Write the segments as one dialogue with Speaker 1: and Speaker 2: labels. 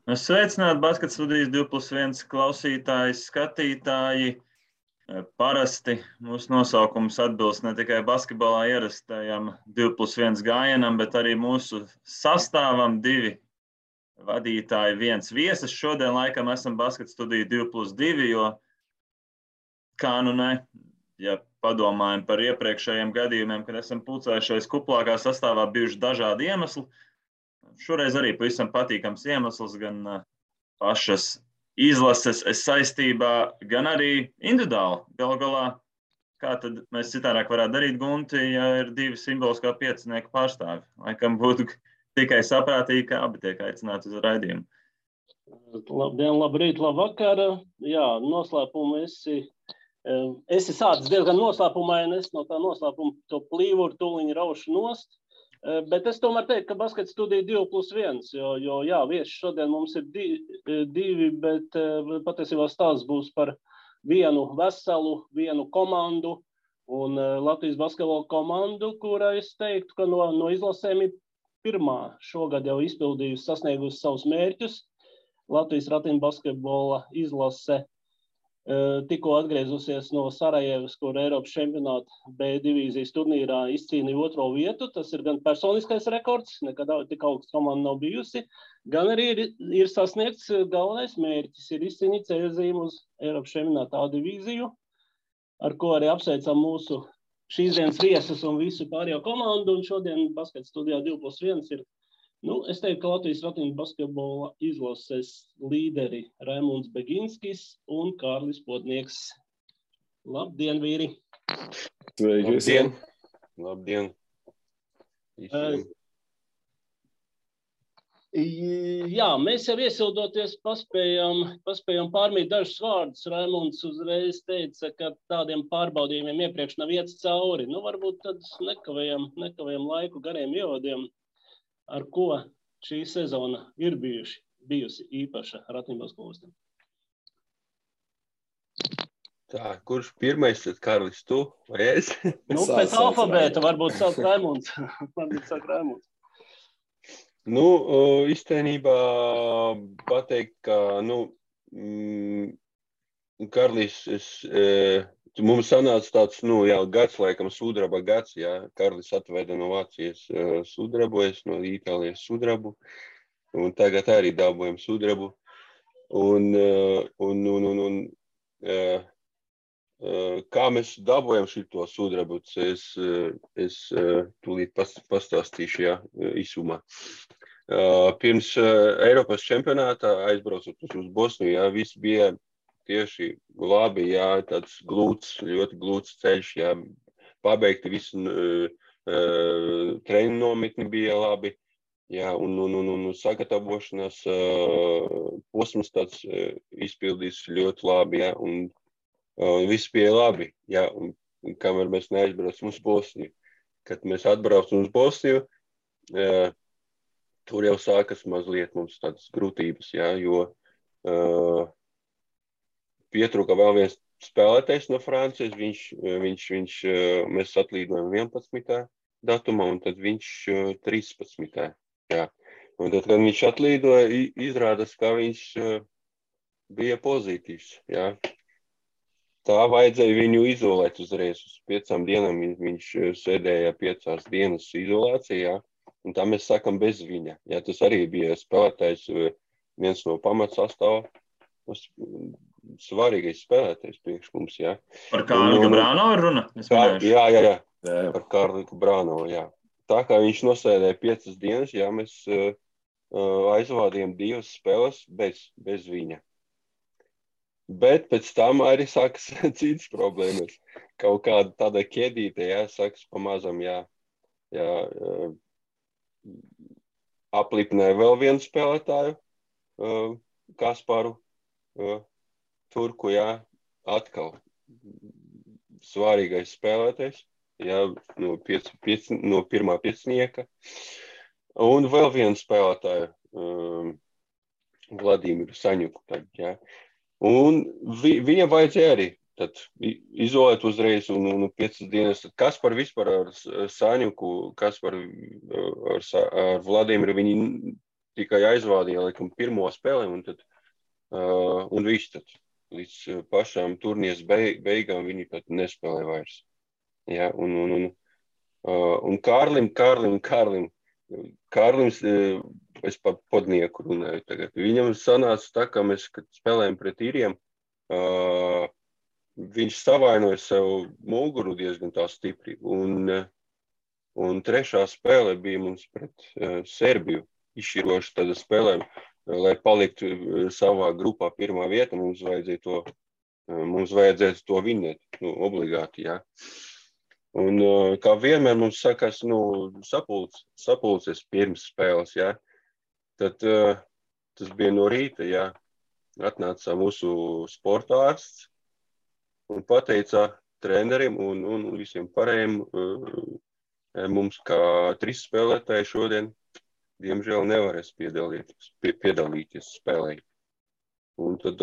Speaker 1: Sveicināti Basket studijas 2+1 klausītāji, skatītāji. Parasti mūsu nosaukums atbilst ne tikai basketbolā ierastajam 2+1 gājienam, bet arī mūsu sastāvam 2 vadītāji, 1 viesis. Šodien laikam esam Basket studija 2+2, jo kā nu ne, ja padomājam par iepriekšējiem gadījumiem, kad esam pulcējušies kuplākā sastāvā, bijuši dažādi iemesli. Šoreiz arī pavisam patīkams iemesls gan pašas izlases saistībā, gan arī individuāli. Galu galā, kā tad mēs citādāk varētu darīt, Gunti, ja ir 2 simboliskā piecinieku pārstāvi? Laikam būtu tikai saprātīgi, ka abi tiek aicināti uz raidījumu.
Speaker 2: Labdien, labrīt, labvakar. Jā, noslēpumu esi sācis diezgan noslēpumaini, es no tā noslēpuma to plīvuru tūliņu raušu nost. Bet es tomēr teiktu, ka Basket studija 2+1, jo jā, vieši šodien mums ir 2, bet patiesībā stāsts būs par vienu veselu komandu un Latvijas basketbola komandu, kura es teiktu, ka no izlasēm ir pirmā šogad jau izpildījusi, sasniegusi savus mērķus. Latvijas ratiņu basketbola izlase tikko atgriezusies no Sarajevas, kur Eiropas čempionāta B divīzijas turnīrā izcīnīja 2. vietu. Tas ir gan personiskais rekords, nekad tik augsts komanda nav bijusi, gan arī ir sasniegts galvenais mērķis, ir izcīnīt ceļzīmu uz Eiropas čempionāta A divīziju, ar ko arī apsveicam mūsu šīs dienas viesus un visu pārējo komandu. Un šodien Basket studijā 2+1 ir, es teiktu, ka Latvijas ratiņu basketbola izlases līderi Raimunds Beginskis un Kārlis Podnieks. Labdien, vīri!
Speaker 3: Sveiki visiem! Labdien!
Speaker 2: Jā, mēs jau iesildoties paspējam pārmīt dažus vārdus. Raimunds uzreiz teica, ka tādiem pārbaudījumiem iepriekš nav iets cauri. Varbūt tad nekavējam laiku gariem ievadiem. Ar ko šī sezona ir bijusi īpaša ratiņu basketbolistam?
Speaker 3: Tā, kurš pirmais, tad Kārlis, tu vai es?
Speaker 2: Pēc alfabēta varbūt sāk Raimunds.
Speaker 3: Īstenībā pateikt, ka, Kārlis, mums sanāca tāds, gads, laikam, sudraba gads, jā. Kārlis atveda no Vācijas sudrabu, es no Itālijas sudrabu, un tagad arī dabojam sudrabu. Kā mēs dabojam šito sudrabu, es tūlīt pastāstīšu, jā, īsumā. Pirms Eiropas čempionātā aizbraucot uz Bosniju, jā, viss bija tieši labi, jā, tāds ļoti glūts ceļš, jā, pabeigti visu treniņu nometni bija labi, jā, un sagatavošanās posms tāds izpildīs ļoti labi, jā, un viss bija labi, jā, un kamēr mēs neaizbraucam uz Bosniju. Kad mēs atbraucam uz Bosniju, tur jau sākas mazliet mums tādas grūtības, jā, jo pietrūka vēl viens spēlētājs no Francijas, mēs atlīdojam 11. datumā, un tad viņš 13. Jā. Un tad, kad viņš atlīdoja, izrādās, ka viņš bija pozitīvs. Jā. Tā vajadzēja viņu izolēt uzreiz. Uz 5 dienām viņš sēdēja 5 dienas izolācijā, un tā mēs sākam bez viņa. Jā, tas arī bija spēlētājs, viens no pamatsastāvā. Svarīgais spēlētājs priekš mums, jā.
Speaker 1: Par Kārli Brānovu ir runa?
Speaker 3: Jā. Par Kārli Brānovu, jā. Tā kā viņš nosēdēja 5 dienas, jā, mēs aizvādījām 2 spēles bez viņa. Bet pēc tam arī sākas citas problēmas. Kaut kāda tāda ķēdīte, jā, sākas pamazam, jā. Aplipināja vēl vienu spēlētāju, Kasparu. Turku, jā, atkal svarīgais spēlētājs, jā, no pirmā piecinieka. Un vēl vienu spēlētāju, Vladimiru Saņuku, jā. Un viņam vajadzēja arī tad izolēt uzreiz un 5 dienas. Kaspar vispār ar Saņuku, Kaspar ar Vladimiru, viņi tikai aizvādīja, laikam, pirmo spēli, un viss tad līdz pašām turnīras beigām viņi pat nespēlē vairs. Ja, un Kārlim, es par podnieku runāju tagad. Viņam sanāca tā, ka mēs, kad spēlējam pret īriem, viņš savainoja sev muguru diezgan tā stipri. Un trešā spēle bija mums pret Serbiju, izšķiroša tāda spēlē, lai paliktu savā grupā pirmā vieta, mums vajadzētu to vinēt, obligāti, jā. Un kā vienmēr mums sakās, sapulces pirms spēles, jā. Tad tas bija no rīta, jā. Atnāca mūsu sporta ārsts un pateica trenerim un visiem pārējiem mums, kā 3 spēlētāji šodien, diemžēl nevarēs piedalīties spēlē. Un tad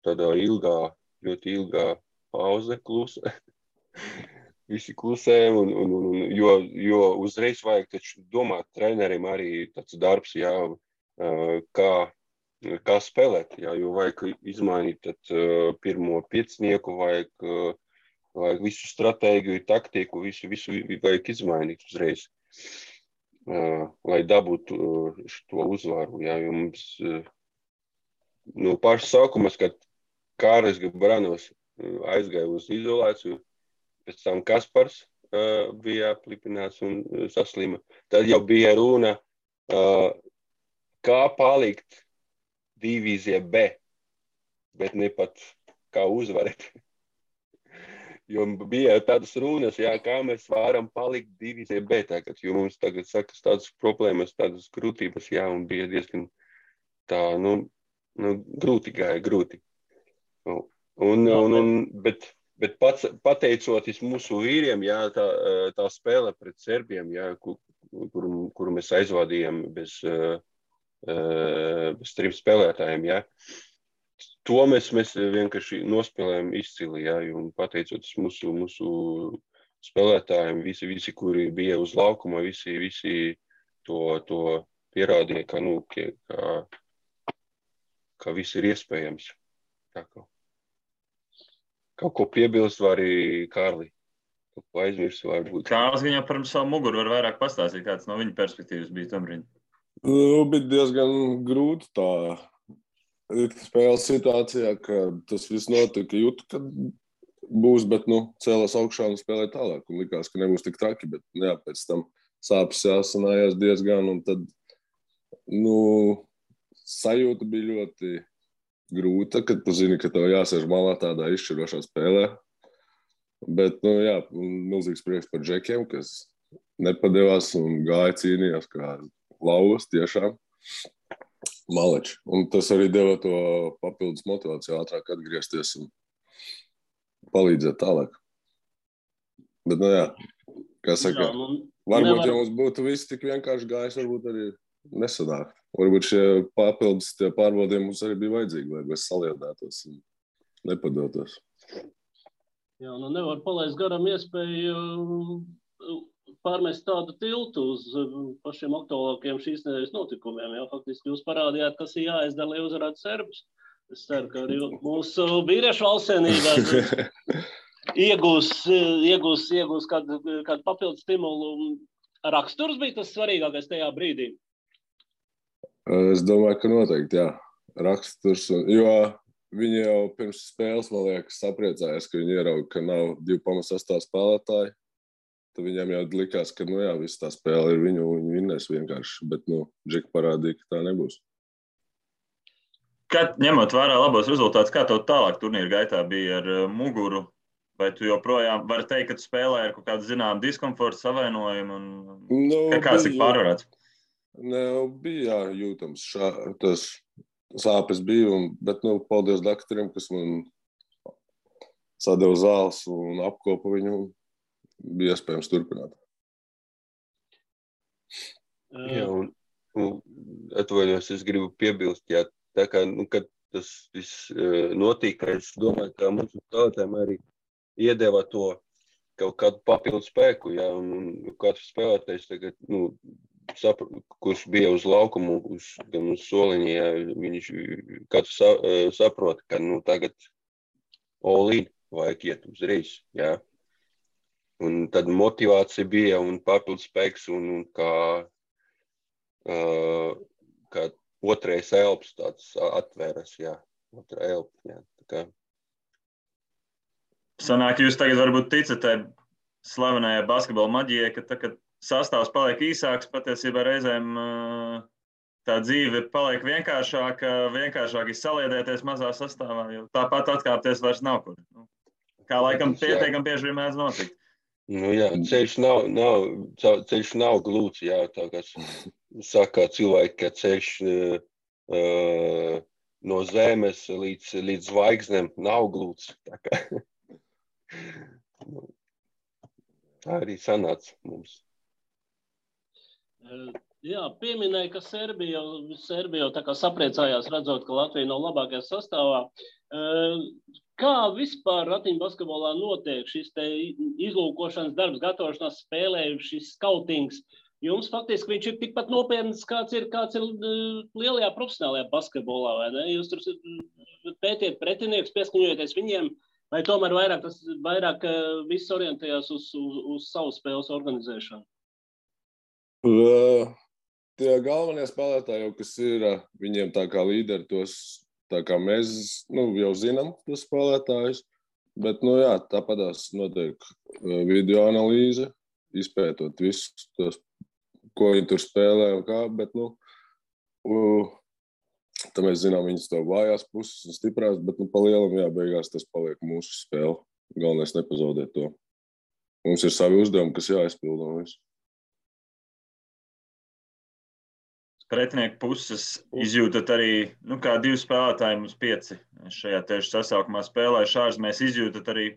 Speaker 3: tādā ļoti ilgā pauze klusa. Visi klusējam, jo uzreiz vajag taču domāt trenerim arī tāds darbs, jā, kā spēlēt, jā, jo vajag izmainīt tad pirmo piecnieku, vajag visu stratēģiju, taktiku, visu vajag izmainīt uzreiz, lai dabūtu šo uzvaru, jā, jo mums no paša sākumas, kad Kārlis Gabranovs aizgāja uz izolāciju, pēc tam Kaspars bija aplipināts un saslima. Tad jau bija runa, kā palikt divīzijā B, bet ne pat kā uzvarēt. Jo bija tādas runas, jā, kā mēs varam palikt divīzijā B tagad, jo mums tagad sakas tādas problēmas, tādas grūtības, jā, un bija diezgan tā, grūti gāja. Bet pateicoties mūsu vīriem, jā, tā spēle pret Serbiem, jā, kuru mēs aizvadījām bez 3 spēlētājiem, jā, to mēs vienkārši nospēlējām izcili, jā, un pateicoties mūsu spēlētājiem, visi, kuri bija uz laukuma, visi to pierādīja, ka viss ir iespējams. Tā kā. Kaut ko piebilst var arī Kārli. Kaut ko aizmirst varbūt.
Speaker 1: Kārlis viņam par savu muguru var vairāk pastāstīt, kāds no viņa perspektīvas bija tombrīd.
Speaker 4: Bija diezgan grūti tā spēles situācijā, ka tas viss notika, jūtu, ka būs, bet, cēlās augšā un spēlēja tālāk. Un likās, ka nebūs tik traki, bet, jā, pēc tam sāpes jāsanājās diezgan, un tad, sajūta bija ļoti grūta, kad tu zini, ka tev jāsēž malā tādā izšķirošā spēlē. Bet, jā, milzīgs prieks par džekiem, kas nepadevās un gāja cīnījās kā lauvas tiešām. Maleči. Un tas arī deva to papildus motivāciju ātrāk atgriezties un palīdzēt tālāk. Bet, jā, kā saka, varbūt, ja mums būtu viss tik vienkārši gājis, varbūt arī nesanāk. Varbūt šie papildus pārbaudījumi mums arī bija vajadzīgi, lai mēs saliedētos un nepadotos.
Speaker 2: Jā, nevar palaist garām iespēju pārmest tādu tiltu uz pašiem aktuālākiem šīs nedēļas notikumiem. Jā, faktiski jūs parādījāt, kas ir jāizdara, lai uzvarētu serbus. Es ceru, ka arī mūsu vīriešu valstsienība iegūs kādu papildu stimulu. Raksturs bija tas svarīgākais tajā brīdī.
Speaker 4: Es domāju, ka noteikti, jā. Raksturs, jo viņi jau pirms spēles, man liekas, sapriecājās, ka viņi ierauga, ka nav 2,8 spēlētāji. Tad viņiem jau likās, ka, jā, viss tā spēle ir viņu, viņi vinnēs vienkārši, bet, Džeki parādīja, ka tā nebūs.
Speaker 1: Ņemot vērā labos rezultātus, kā tev tālāk turnīra gaitā bija ar muguru? Vai tu joprojām vari teikt, ka tu spēlē ar kaut kādu zinām diskomfortu, savainojumu un kāds ir pārvarēts?
Speaker 4: Bija jūtams, tas sāpes bija, bet, paldies doktoriem, kas man sadeva zāles un apkopa viņu, bija iespējams turpināt.
Speaker 3: Jā, un atvainojos, es gribu piebilst, jā, tā kā, kad tas viss notika, es domāju, ka mums spēlētājiem arī iedeva to kaut kādu papildu spēku, jā, un katrs spēlētājs tagad, kurš bija uz laukumu, gan uz soliņa, ja, viņš katrs saprot, ka tagad all-in vajag iet uzreiz. Ja. Un tad motivācija bija un papildus spēks un kā otrais elps tāds atvēras, jā. Otra elpa, jā. Tā kā.
Speaker 1: Sanāk, jūs tagad varbūt ticat tai slavenajai basketbola maģijai, ka tā, kad sastāvs paliek īsāks, patiesībā reizēm tā dzīve paliek vienkāršāk izsaliedēties mazā sastāvā, jo tāpat atkāpties vairs nav kur. Kā laikam pietiekam bieži vien mēdz notikt.
Speaker 3: Nu jā, ceļš nav glūts, jā, tā kā saka cilvēki, ka ceļš no zemes līdz zvaigznēm nav glūts. Tā arī sanāca mums.
Speaker 2: Jā, pieminēja, ka Serbija jau tā kā sapriecājās redzot, ka Latvija nav labākajā sastāvā. Kā vispār ratiņu basketbolā notiek šis te izlūkošanas darbs, gatavošanās spēlē, šis skautings? Jums faktiski viņš ir tikpat nopietns, kāds ir lielajā profesionālajā basketbolā, vai ne? Jūs tur pētiet pretinieks, pieskaņojaties viņiem, vai tomēr vairāk viss orientējās uz savu spēles organizēšanu?
Speaker 4: Tie galvenie spēlētāji jau, kas ir, viņiem tā kā līderi tos, tā kā mēs jau zinām tos spēlētājus, bet, jā, tāpatās notiek video analīze, izpētot visus tos, ko viņi tur spēlē un kā, bet, tā mēs zinām viņas to vājās puses un stiprās, bet, pa lielam, jā, beigās tas paliek mūsu spēle. Galvenais nepazaudēt to. Mums ir savi uzdevumi, kas jāizpilda un visu.
Speaker 1: Pretinieku puses izjūtat arī, kā 2 spēlētāji mums 5 šajā tieši sasaukumā spēlējuši ārzemēs, izjūtat arī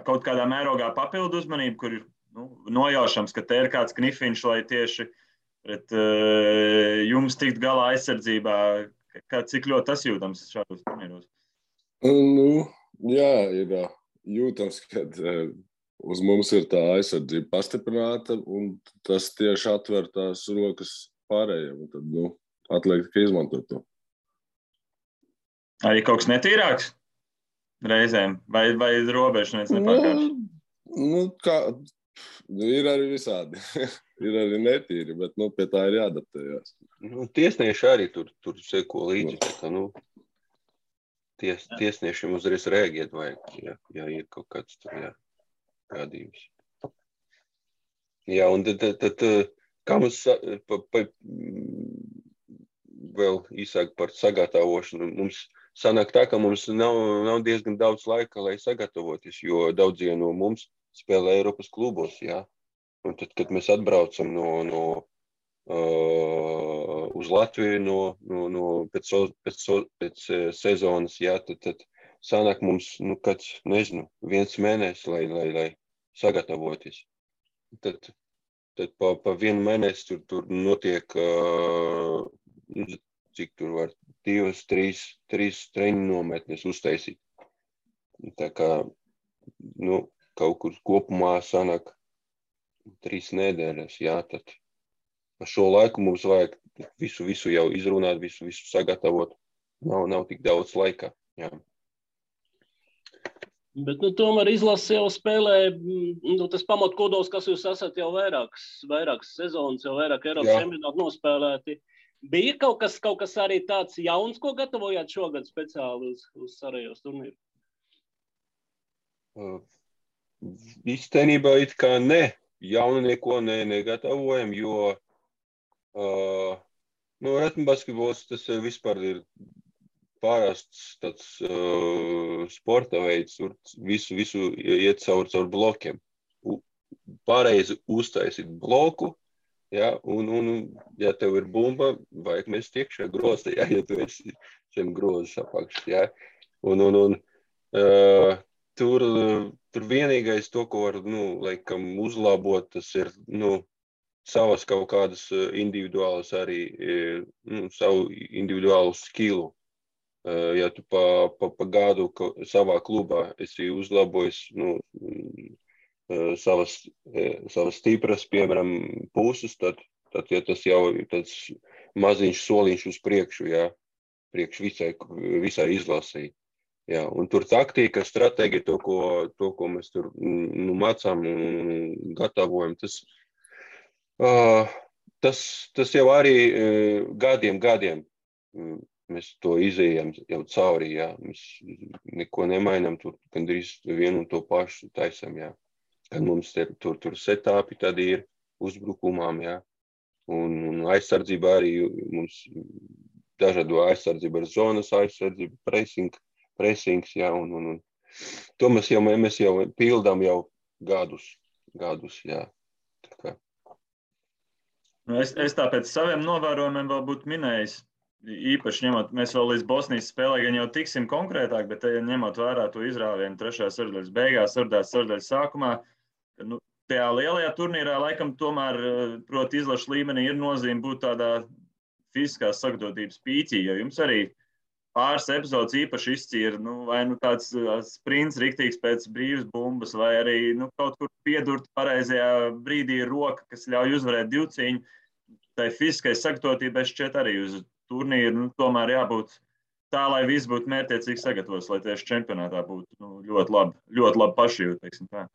Speaker 1: kaut kādā mērogā papildu uzmanību, kur ir nojaušams, ka te ir kāds knifiņš, lai tieši pret jums tikt galā aizsardzībā. Cik ļoti tas jūtams šādos turnīros?
Speaker 4: Jā, ir jūtams, ka uz mums ir tā aizsardzība pastiprināta, un tas tieši atver tās rokas pārējiem, un tad, atliek tikai izmantot to.
Speaker 1: Arī kaut kas netīrāks reizēm? Vai robežu nepārkārš?
Speaker 4: Ir arī visādi. Ir arī netīri, bet, pie tā ir jāadaptējās.
Speaker 3: Tiesnieši arī tur seko līdzi. Tiesniešiem uzreiz rēģēt vajag, ja ir kaut kāds tur, gadījums. Jā, un tad kā mums vēl īsāk par sagatavošanu, mums sanāk tā, ka mums nav diezgan daudz laika, lai sagatavoties, jo daudzie no mums spēlē Eiropas klubos, jā. Un tad, kad mēs atbraucam uz Latviju pēc sezonas, jā, tad sanāk mums, kāds, nezinu, 1 mēnesis, lai sagatavoties. Tad pa 1 mēnesi tur notiek, cik tur var 2, 3 treniņu nometnes uztaisīt. Tā kā, kaut kur kopumā sanāk 3 nedēļas, jā, tad pa šo laiku mums vajag visu jau izrunāt, visu sagatavot. Nav tik daudz laika, jā.
Speaker 2: Bet, tomēr izlase jau spēlē, tas pamatkodols, kas jūs esat jau vairākas sezonas, jau vairāk Eiropas čempionātu nospēlēti. Bija kaut kas arī tāds jauns, ko gatavojāt šogad speciāli uz Sarajevas turnīru?
Speaker 3: Īstenībā it kā ne. Jaunu neko negatavojam, jo ratiņbasketbols tas vispār ir pārāsts tāds sporta veids, tur visu iet caur blokiem. Pareizi uztaisīt bloku, ja, un ja tev ir bumba, vajag mest iekšā grozā, ja tu esi zem grozas apakšas, ja. Un tur vienīgais to, ko var, laikam uzlabot, tas ir, savas kaut kādas individuālas arī, savu individuālu skilu. Ja tu pa gadu savā klubā esi uzlabojis savas stipras, piemēram, puses, tad tad ja tas jau ir tāds maziņš soliņš uz priekšu, jā, priekš visai izlasī. Jā, un tur taktika, stratēģija, to, ko mēs tur mācām un gatavojam, tas jau arī gadiem mēs to izējām jau cauri, jā. Mēs neko nemainām, tur gandrīz vienu un to pašu taisam, jā. Kad mums tur setāpi tad ir uzbrukumām, jā. Un aizsardzība arī mums dažādo aizsardzība ar zonas aizsardzību, pressings, jā, un to mēs jau pildām jau gadus, jā. Tā kā.
Speaker 1: Es tāpēc saviem novērojumiem vēl būtu minējis, īpaši ņemot, mēs vēl līdz Bosnijas spēlē gan jau tiksim konkrētāk, bet ņemot vērā to izrāvienu 3. sardēļas beigās, 4. sardēļas sākumā, tajā lielajā turnīrā laikam tomēr, proti, izlašu līmenī ir nozīme būt tādā fiziskās sagatavotības pīķī, jo jums arī pāris epizodes īpaši izcīra, vai tāds sprints riktīgs pēc brīvas bumbas, vai arī kaut kur piedurt pareizajā brīdī roka, kas ļauj uzvarēt divcīņu. Tai fiziskai sagatavotībai šķiet arī uz turnīru, tomēr jābūt tā, lai viss būtu mērķiecīgi sagatavots, lai tieši čempionātā būtu ļoti labi pašjūt, teiksim tā.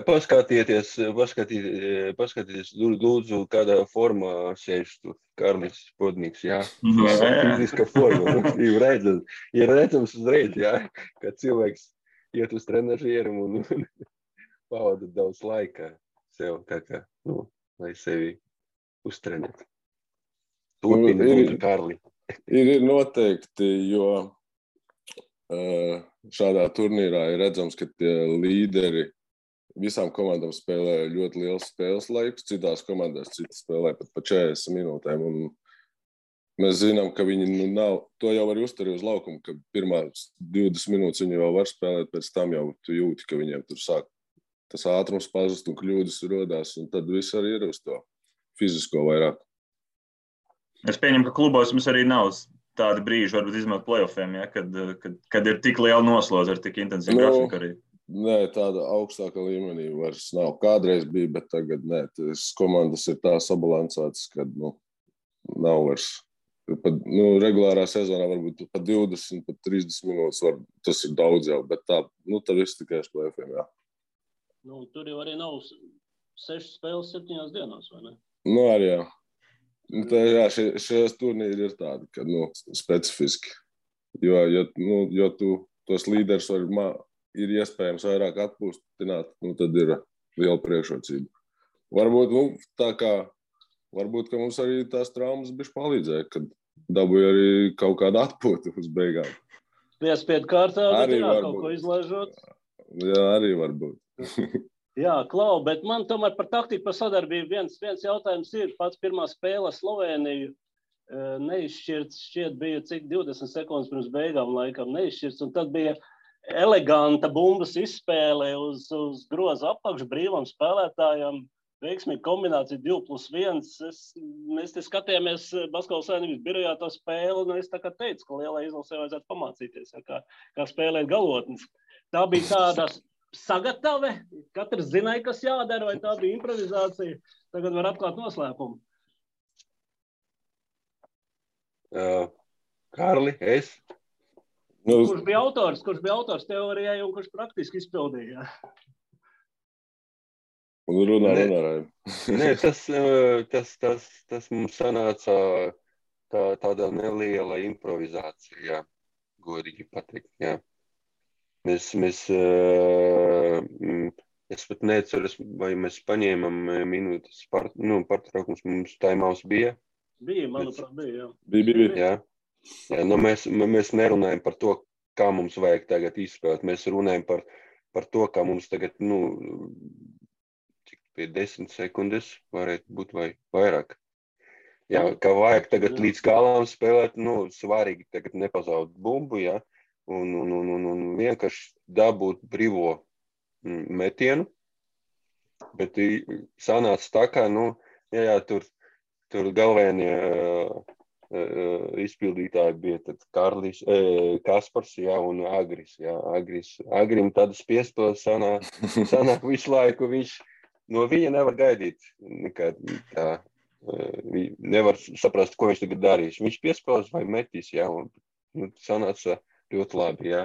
Speaker 3: Paskatieties, lūdzu, kādā formā sēž tur Karlis Podniks, jā. Fiziska forma, ir redzams uzreiz, jā, ka cilvēks iet uz trenažierim un pavada daudz laika sev, tā kā, lai sevi uztrenētu. Turpina, lūdzu, Karli.
Speaker 4: Ir noteikti, jo šādā turnīrā ir redzams, ka tie līderi visām komandām spēlē ļoti liels spēles laiks, citās komandās citas spēlē pat pa 40 minūtēm. Un mēs zinām, ka viņi nav, to jau var uzturēt uz laukumu, ka pirmās 20 minūtes viņi jau var spēlēt, pēc tam jau tu jūti, ka viņiem tur sāk tas ātrums pazust un kļūdas rodās, un tad viss arī ir uz to fizisko vairāk.
Speaker 1: Es pieņemu, ka klubos jums arī nav tādi brīži, varbūt izmantot playoffiem, ja, kad ir tik liela noslodze ar tik intensīvu grafiku arī.
Speaker 4: Nē, tāda augstāka līmenī vairs nav. Kādreiz bija, bet tagad nē. Tas komandas ir tā sabalansētas, kad nav vairs. Regulārā sezonā varbūt pat 20, pat 30 minūtes tas ir daudz jau, bet tā viss tikai uz playoffiem, jā.
Speaker 2: Tur jau arī nav 6 spēles 7 dienās, vai ne?
Speaker 4: Arī jā. Šajās turnīri ir tādi, ka specifiski. Jo tu tos līderus ir iespējams vairāk atpūstināt, tad ir liela priekšrocība. Varbūt, ka mums arī tās traumas bišķi palīdzēja, kad dabūja arī kaut kādu atpūtu uz beigām.
Speaker 2: Piespiedu kārtā, bet kaut ko izlaižot.
Speaker 4: Jā, arī varbūt.
Speaker 2: Jā, Klau, bet man tomēr par taktiku, par sadarbību viens jautājums ir. Pats pirmā spēle Slovēniju neizšķirts, šķiet bija cik 20 sekundes pirms beigām laikam neizšķirts, un tad bija eleganta bumbas izspēle uz groza apakšu brīvam spēlētājam, veiksmīga kombinācija 2+1. Mēs te skatījāmies Basketbola Savienības birojā to spēli, un es tā kā teicu, ka lielai izlasē vajadzētu pamācīties, kā spēlēt galotnes. Tā bija tāda sagatave, katrs zināja, kas jādara, vai tā bija improvizācija. Tagad var atklāt noslēpumu.
Speaker 3: Karli, es?
Speaker 2: Kurš bija autors teorijai un kurš praktiski izpildīja?
Speaker 4: Runā.
Speaker 3: Nē, tas mums sanāca tāda neliela improvizācija, jā, godīgi pateikt, jā. Es pat neceros, vai mēs paņēmām minūtes pārtraukums, mums timeouts bija.
Speaker 2: Bija, manuprāt, bija, jā.
Speaker 4: Bija.
Speaker 3: Jā, mēs nerunājam par to, kā mums vajag tagad izspēlēt. Mēs runājam par to, kā mums tagad, cik pie 10 sekundes varētu būt vai vairāk. Jā, kā vajag tagad līdz galam spēlēt, svarīgi tagad nepazaudēt bumbu, jā. Un vienkārši dabūt brīvo metienu, bet sanāca tā kā, tur galvenie izpildītāji bija tad Kaspars, jā, un Agris, jā, Agrim tāda spiestos sanāk visu laiku, viņš no viņa nevar gaidīt nekā tā. Nevar saprast, ko viņš tagad darīs. Viņš piespēlēs vai metīs, jā, un sanāca ļoti labi, jā.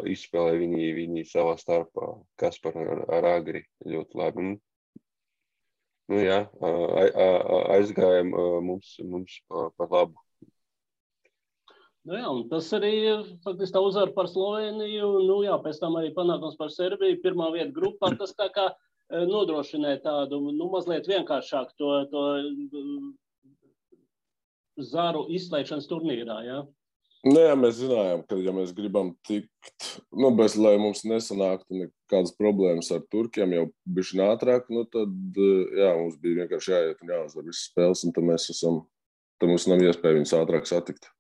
Speaker 3: Izspēlē viņi savā starpā, Kaspar ar Agri ļoti labi. Jā, aizgājām mums par labu.
Speaker 2: Jā, un tas arī faktiski tā uzvara par Sloveniju, pēc tam arī panākums par Serbiju, pirmā vieta grupā, tas tā kā nodrošināja tādu, mazliet vienkāršāk to zaru izslēgšanas turnīrā, jā?
Speaker 4: Jā, mēs zinājām, ka, ja mēs gribam tikt, bez, lai mums nesanāktu nekādas problēmas ar turkiem jau bišķi ātrāk, tad, jā, mums bija vienkārši jāiet un jāuzvar visas spēles, un tad mums nav iespēja viņus ātrāk satikt.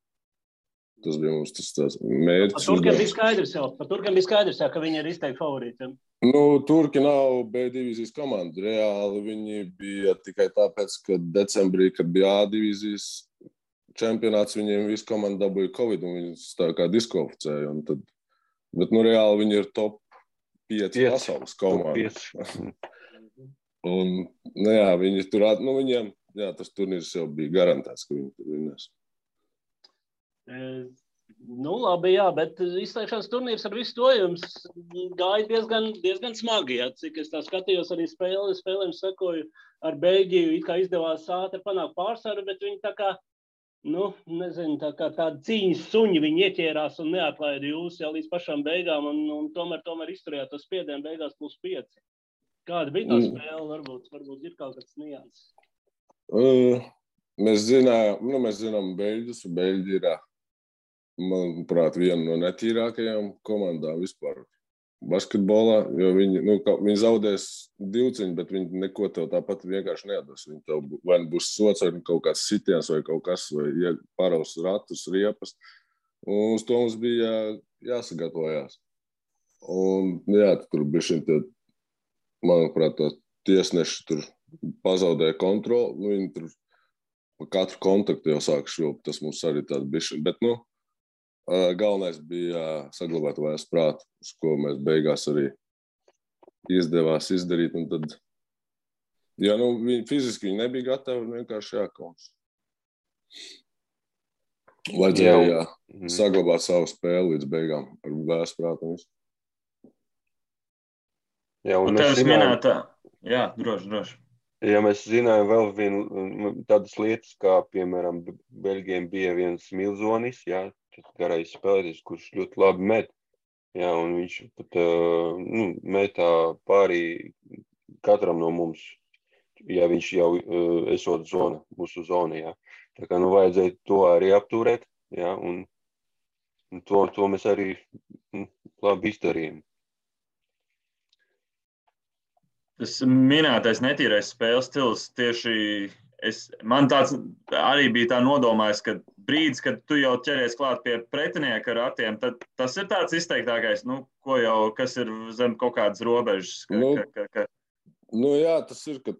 Speaker 4: Tas bija mums tas mērķis.
Speaker 2: Par turkiem bija skaidrs, ka viņi ir izteikti favorīti.
Speaker 4: Turki nav B divīzijas komanda. Reāli viņi bija tikai tāpēc, ka decembrī, kad bija A divīzijas čempionāts, viņiem visu komandu dabūja Covid un viņus tā kā diskvalificēja. Bet reāli viņi ir top 5 pasaules komanda. Un, jā, viņi tur, viņiem, jā, tas turnīrs jau bija garantēts, ka viņi tur vinnēs.
Speaker 2: Labi, jā, bet izslēgšanas turnīrs ar visu to jums gāja diezgan smagi, jā. Cik es tā skatījos arī spēlēm sekoju ar Beļģiju, it kā izdevās ātri panākt pārsvaru, bet viņi tā kā, nezinu, tā kā tādi cīņas suņi viņi ieķērās un neatlaida jūs jau līdz pašām beigām un tomēr izturējāt to spiedienu beigās +5. Kāda bija tā spēle? Varbūt ir kaut kāds nianses.
Speaker 4: Mēs zinām Beļģus, un Beļģi ir, manuprāt, viena no netīrākajām komandām vispār basketbolā, jo viņi zaudēs divciņu, bet viņi neko tev tāpat vienkārši neatdos. Viņi tev vai būs sots, vai kaut kāds sitiens, vai kaut kas, vai paraus ratus, riepas. Un uz to mums bija jāsagatavojās. Un, jā, tur bišķiņ tie, manuprāt, to tiesneši tur pazaudēja kontroli. Viņi tur katru kontaktu jau sāk švilpt, tas mums arī tāda bišķiņ. Bet, galvenais bija saglabāt vairs prātu, uz ko mēs beigās arī izdevās izdarīt. Un tad, fiziski viņi nebija gatavi, vienkārši jākauns. Vajadzēja saglabāt savu spēli līdz beigām ar vairs prātu.
Speaker 1: Jā, un tevis minētā. Jā, droši.
Speaker 3: Ja mēs zinājām vēl vienu tādas lietas, kā, piemēram, Beļģiem bija viens Milzonis, jā, garais spēlētājs, kurš ļoti labi met. Jā, un viņš pat metā pārī katram no mums, ja viņš jau esot mūsu zona, jā. Tā kā vajadzēja to arī apturēt, jā, un to mēs arī labi izdarījām.
Speaker 1: Tas minētais netīrais spēles stils tieši man tāds arī bija tā nodomājis, ka brīdis, kad tu jau ķeries klāt pie pretinieka ratiem, tad tas ir tāds izteiktākais, kas ir zem kaut kādas robežas.
Speaker 4: Jā, tas ir, ka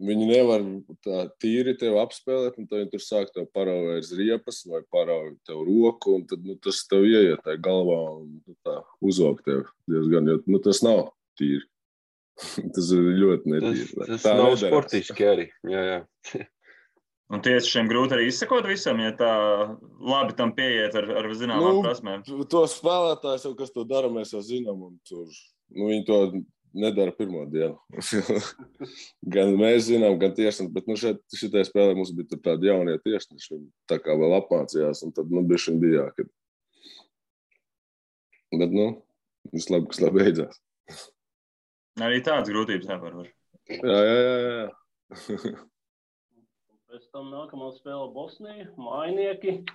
Speaker 4: viņi nevar tā tīri tev apspēlēt, un tad viņi tur sāk tev parauvēs riepas vai parauj tev roku, un tad tas tev ieiet tā galvā un tā uzvalk tev diezgan, jo tas nav tīri. Tas ir ļoti netīri.
Speaker 3: Tas nav sportiski arī. Jā.
Speaker 1: Un tiešām grūti arī izsekot visam, ja tā labi tam pieiet ar zināmām prasmēm.
Speaker 4: To spēlētājs, kas to dara, mēs jau zinām. Viņi to nedara pirmo dienu. Gan mēs zinām, gan tiešām. Bet šitai spēlē mums bija tādi jaunie tiešneši. Viņi tā kā vēl apmācījās. Un tad bišķiņ bija jākad. Bet, viss labi, kas labi beidzās.
Speaker 1: Arī tādas grūtības nevar.
Speaker 4: Jā.
Speaker 2: Pēc tam nākamā spēle Bosnija, mājnieki.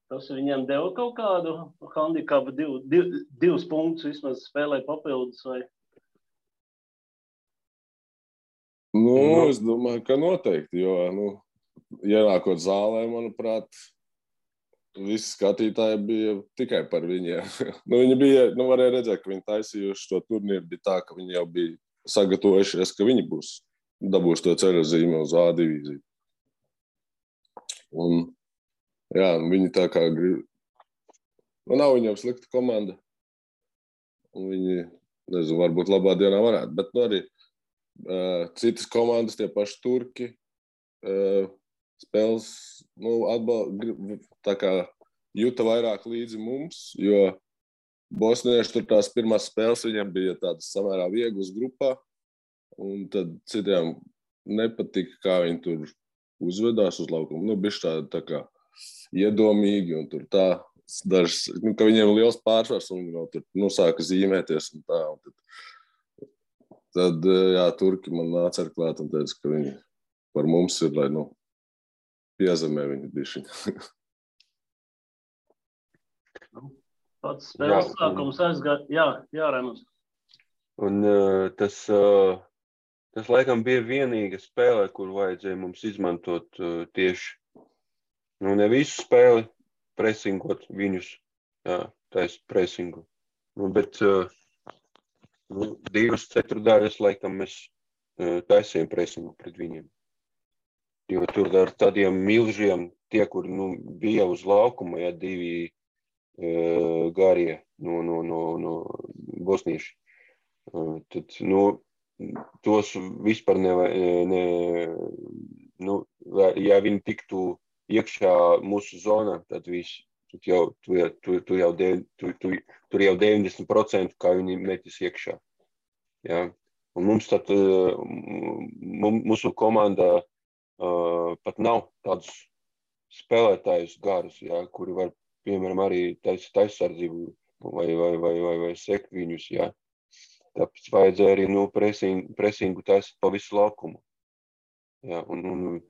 Speaker 2: Tas viņiem deva kaut kādu handikapu, divus punktus vismaz spēlē papildus vai?
Speaker 4: Es domāju, ka noteikti, jo, ienākot zālē, manuprāt, visi skatītāji bija tikai par viņiem. Viņi bija, varēja redzēt, ka viņi taisījuši to turnīru, bija tā, ka viņi jau bija sagatavojušies, ka viņi dabūs to ceļozīmi uz A divīziju. Un, jā, viņi tā kā grib. Nav viņiem slikta komanda. Un viņi, nezinu, varbūt labā dienā varētu, bet arī citas komandas, tie paši turki, spēles, tā kā juta vairāk līdzi mums, jo bosnieši tur tās pirmās spēles viņiem bija tādas samērā vieglas grupā, un tad citiem nepatika, kā viņi tur uzvedās uz laukumu. Bišķi tā kā iedomīgi, un tur tā dažs, ka viņiem liels pārsvars, un viņi vēl tur sāka zīmēties un tā. Un tad, jā, turki man nāca ar klāt un teica, ka viņi par mums ir, lai, piezemē viņi bišķiņ.
Speaker 2: Pats spēles sākums aizgāja. Jā, Raimunds.
Speaker 3: Un tas laikam bija vienīga spēle, kur vajadzēja mums izmantot tieši, ne visu spēli, presingot viņus, taisa presingu. Bet divas ceturdaļas laikam mēs taisījām presingu pret viņiem. Jo tur ar tādiem milžiem, tie, kur bija uz laukuma, divi garie no bosnieši. Tad, tos vispār ja viņi tiktu iekšā mūsu zonā, tad viss. Tur jau 90%, kā viņi metis iekšā. Ja? Un mums tad, mūsu komandā pat nav tādus spēlētājus garus, ja, kuri var, piemēram, arī taisardzību vai sekt viņus, ja. Tāpēc vajadzēja arī presingu taisīt pa visu laukumu. Ja, un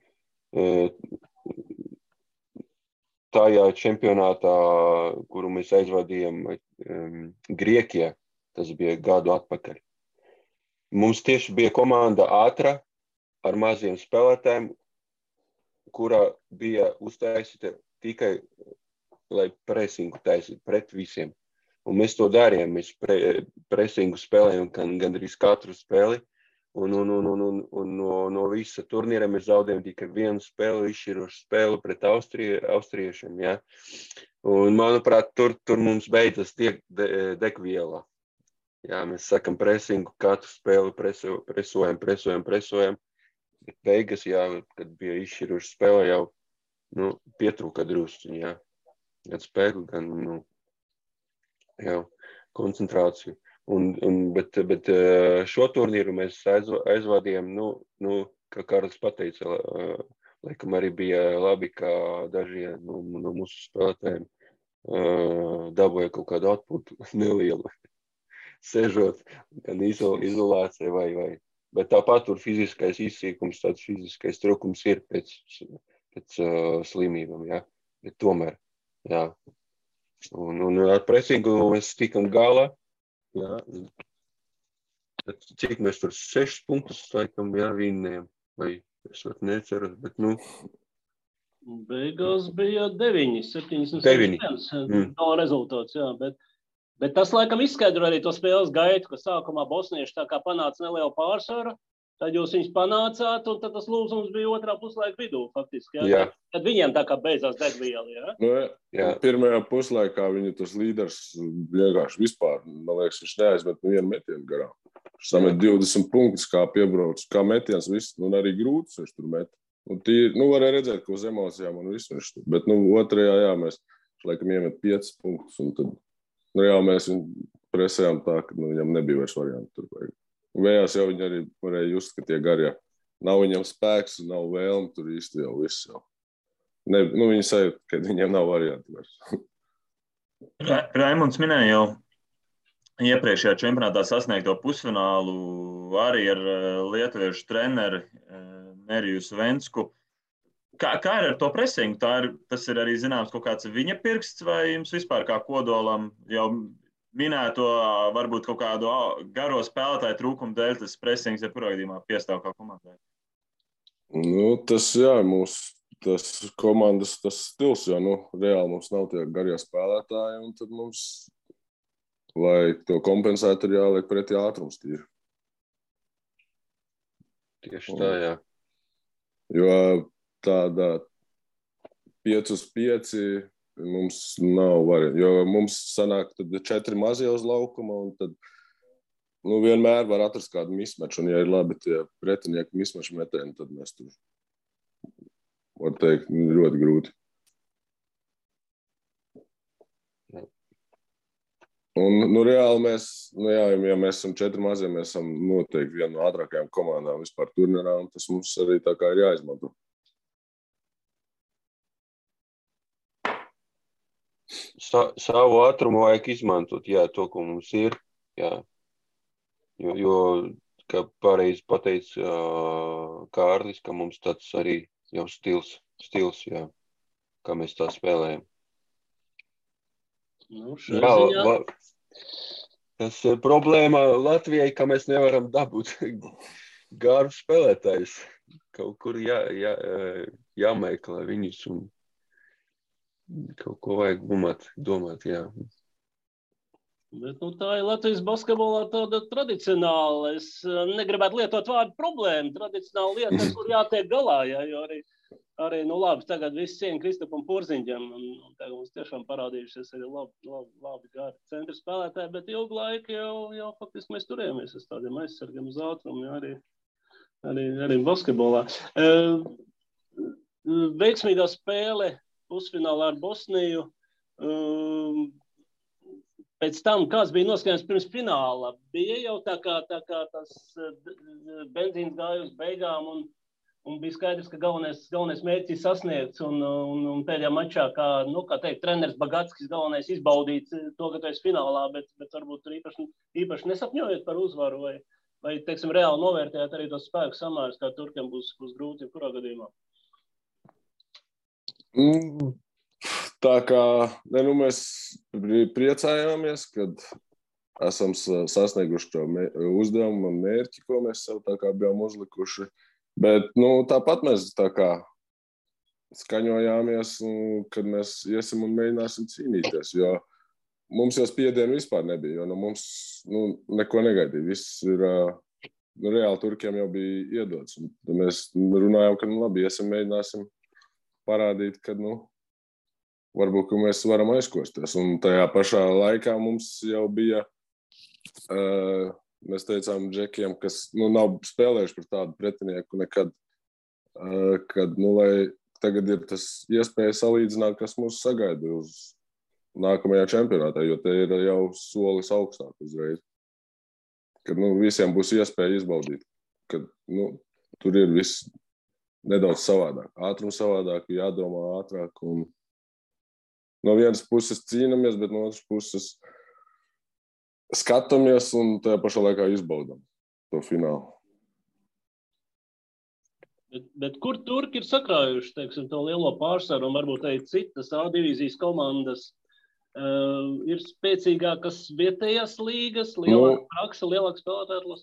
Speaker 3: tajā čempionātā, kuru mēs aizvadījām Grieķijā, tas bija gadu atpakaļ. Mums tieši bija komanda ātra ar maziem spēlētājiem, kurā bija uztaisīta tikai, lai presingu taisītu pret visiem. Un mēs to darījām, mēs presingu spēlējām gandrīz katru spēli, un no visa turnīra mēs zaudējām tikai vienu spēli, izšķirošu spēli pret austriešiem, ja. Un, manuprāt, tur mums beidzas degviela. Ja, mēs sakam presingu, katru spēli presojam. Bet beigas, jā, kad bija izšķiroša spēle, jau pietrūka drusciņi, jā. Gan spēku, gan koncentrāciju. Bet šo turnīru mēs aizvadījām, kā Kārlis pateica, laikam arī bija labi, ka daži no mūsu spēlētājiem dabūja kaut kādu atpūtu nelielu, sežot, gan izolācija vai. Bet tāpat tur fiziskais izsīkums, tāds fiziskais trūkums ir pēc slimībām, jā. Bet tomēr, jā. Un ar presingu mēs tikam galā, jā. Cik mēs tur 6 punktus laikam, jā, vinnējam. Vai es pat neceru, bet
Speaker 2: Beigās bija 9, 7-1 no rezultāts, jā, Bet tas, laikam, izskaidro arī to spēles gaitu, ka sākumā bosnieši tā kā panāca nelielu pārsvaru, tad jūs viņus panācāt, un tad tas lūzums bija otrā puslaika vidū, faktiski. Ja? Tad viņiem tā kā beidzās degviela, ja?
Speaker 4: Pirmajā puslaikā viņu tas līderis vienkārši vispār, man liekas, viņš neaizmet vienu metienu garām. Viņš samet 20 punktus, kā piebrauc, kā metiens, viss, un arī grūts viņš tur met. Un varēja redzēt, ko uz emocijām un visu viņš tur. Bet, otrajā, jā, mēs laikam iemet 5 punktus, un tad mēs viņu presējām tā, ka viņam nebija vairs varianti tur. Vējās jau viņi arī varēja just, ka tie garie nav viņam spēks, nav vēlme, tur īsti jau viss jau. Viņi sajūt, ka viņiem nav varianti vairs.
Speaker 1: Raimunds minēja jau iepriekšējā čempionātā sasniegto pusfinālu arī ar lietuviešu treneri Neriju Svensku. Kā ir ar to presingu? Tas ir arī zināms kaut kāds viņa pirksts, vai jums vispār kā kodolam jau minēto varbūt kaut kādu garo spēlētāju trūkumu dēļ tas presings jebkurā gadījumā piestāv kā komandai?
Speaker 4: Tas, jā, tas komandas tas stils, jo, reāli mums nav tie garie spēlētāji, un tad mums, lai to kompensētu, ir jāliek pretī ātrums tīri.
Speaker 3: Tieši tā, jā.
Speaker 4: Jo tādā 5-5 mums nav varianti, jo mums sanāk tad 4 mazie uz laukuma, un tad nu, vienmēr var atrast kādu mismeču, un ja ir labi tie pretinieki mismeču metieni, tad mēs tur, var teikt, ļoti grūti. Un, nu, reāli mēs, nu, jā, ja mēs esam 4 mazie, mēs esam noteikti viena no ātrākajām komandām vispār turnīrā, un tas mums arī tā kā ir jāizmanto.
Speaker 3: Savu ātrumu vajag izmantot, jā, to, ko mums ir, jā. Jo kā pareizi pateica Kārlis, ka mums tāds arī jau stils, jā, kā mēs tā spēlējam.
Speaker 2: Nu,
Speaker 3: jā, tas ir problēma Latvijai, ka mēs nevaram dabūt garu spēlētājus. Kaut kur jāmeklē viņus un kaut ko vajag domāt, jā.
Speaker 2: Bet, nu, tā ir Latvijas basketbolā tāda tradicionāla. Es negribētu lietot vārdu problēma. Tradicionāla lieta, kur jātiek galā, jā, jo arī, nu labi, tagad viss cieņa Kristapam Porziņģam, un tagad mums tiešām parādījušies arī labi gari centra spēlētāji, bet ilgu laiku jau faktiski mēs turējamies uz tādiem aizsargiem uz ātrumu, jā, arī basketbolā. Veiksmīgā spēle pusfinālā ar Bosniju. Pēc tam, kāds bija noskaņojums pirms fināla, bija jau tā kā tas benzīns gāja uz beigām, un bija skaidrs, ka galvenais mērķis sasniegts, un pēdējā mačā, kā teikt, treneris Bagatskis galvenais izbaudīt to, ka tu esi finālā, bet varbūt tur īpaši nesapņojot par uzvaru, vai teiksim, reāli novērtējot arī tos spēku samērus, kā turkiem būs grūti, kurā gadījumā?
Speaker 4: Tā kā, mēs priecājāmies, kad esam sasnieguši to uzdevumu un mērķi, ko mēs sev tā kā bijām uzlikuši. Bet, tāpat mēs tā kā skaņojāmies, kad mēs iesim un mēģināsim cīnīties, jo mums jau spiedienu vispār nebija, jo mums neko negaidīja. Viss ir, reāli turkiem jau bija iedots. Un tad mēs runājām, ka labi, iesim mēģināsim parādīt, ka, varbūt, ka mēs varam aizkosties. Un tajā pašā laikā mums jau bija... Mēs teicām džekiem, kas nav spēlējuši par tādu pretinieku nekad, kad lai tagad ir tas iespēja salīdzināt, kas mūs sagaida uz nākamajā čempionātā, jo te ir jau solis augstāk uzreiz. Kad visiem būs iespēja izbaudīt, kad tur ir viss nedaudz savādāk. Ātrums savādāk, jādomā ātrāk. Un no vienas puses cīnamies, bet no otras puses skatāmies un tajā pašā laikā izbaudām to finālu.
Speaker 2: Bet kur turki ir sakrājuši, teiksim, to lielo pārsvaru un varbūt arī citas A divīzijas komandas ir spēcīgākas vietējās līgas, lielāka praksa, lielāka spēlētāja atlase?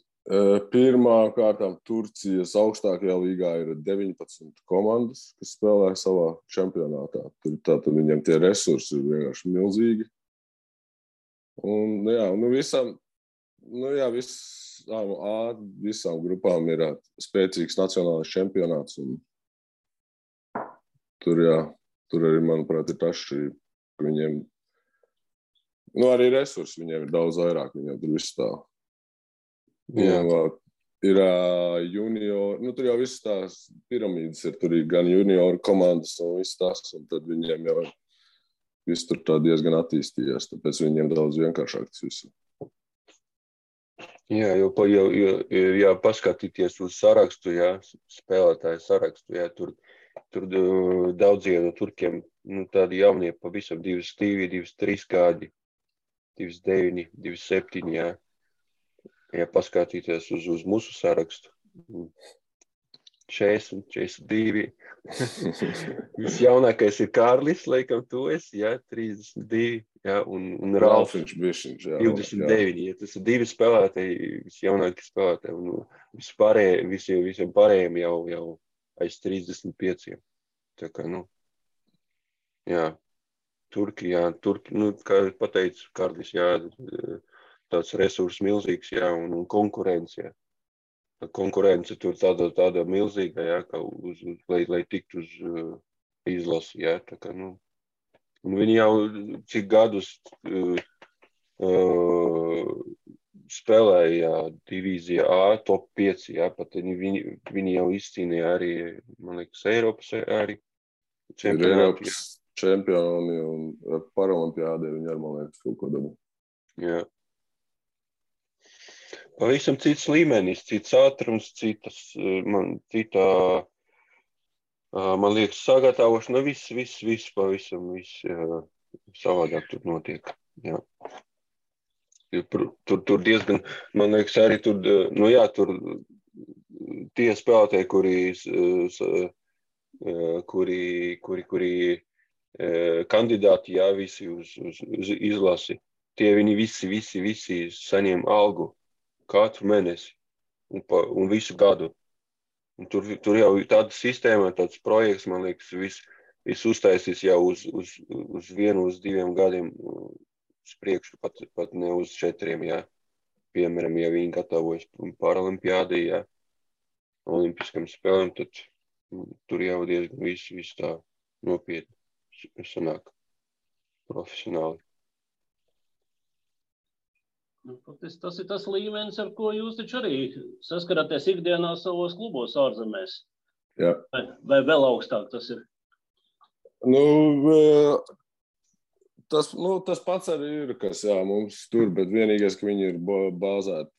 Speaker 4: Pirmā kārtām Turcijas augstākajā līgā ir 19 komandas, kas spēlē savā čempionātā. Tātad viņiem tie resursi ir vienkārši milzīgi. Un, visām grupām ir spēcīgs nacionālais čempionāts. Un tur arī, manuprāt, ir tas šķirība, ka viņiem, arī resursi viņiem ir daudz vairāk, viņiem tur viss tā. Ir junior, tur jau viss tās piramīdas ir, tur ir gan junioru komandas un viss tas, un tad viņiem jau viss tur tā diezgan attīstījies, tāpēc viņiem daudz vienkāršāk tas viss.
Speaker 3: Jā, jo paskatīties uz sarakstu, spēlētāju sarakstu, tur daudzie no turkiem, tādi jaunie pavisam 22, 23 gadi, 29, 27, ja paskatīties uz mūsu sarakstu. 40, 42. Visjaunākais ir Kārlis, laikam tu esi, 32, un Ralfiņš, 29. Tas ir 2 spēlētāji, visjaunākie spēlētāji, un visiem pārējiem jau aiz 35. Tā kā, Turki, kā pateicu Kārlis, tāds resurs milzīgs, un konkurence, konkurence tur tāda milzīga, ka lai tiktu uz izlasi, tā kā, un viņi jau cik gadus spēlēja divīzijā A, top 5, jā, pat viņi jau izcīnīja arī, man liekas, Eiropas arī čempionāti.
Speaker 4: Ir Eiropas čempioni un Paralimpiādē viņi arī, man liekas, kaut ko dabū.
Speaker 3: Jā. Pavisam cits līmenis, cits ātrums, man liekas, sagatavošana, viss pavisam, savādāk tur notiek. Jā. Tur diezgan, man liekas, arī tur tie spēlētāji, kuri kandidāti, jā, visi uz izlasi, tie viņi visi saņem algu katru mēnesi un visu gadu. Un tur jau tāda sistēma, tāds projekts, man liekas, viss uztaisīs jau uz 1, uz 2 gadiem uz priekšu, pat ne uz 4, jā. Piemēram, ja viņi gatavojas Paralimpiādē, jā, olimpiskam spēlēm, tad tur jau diezgan viss tā nopietni sanāk profesionāli.
Speaker 2: Tas ir tas līmenis, ar ko jūs taču arī saskaraties ikdienā savos klubos ārzemēs.
Speaker 4: Jā.
Speaker 2: Vai vēl augstāk tas ir?
Speaker 4: Tas pats arī ir, kas mums tur, bet vienīgais, ka viņi ir bāzēti,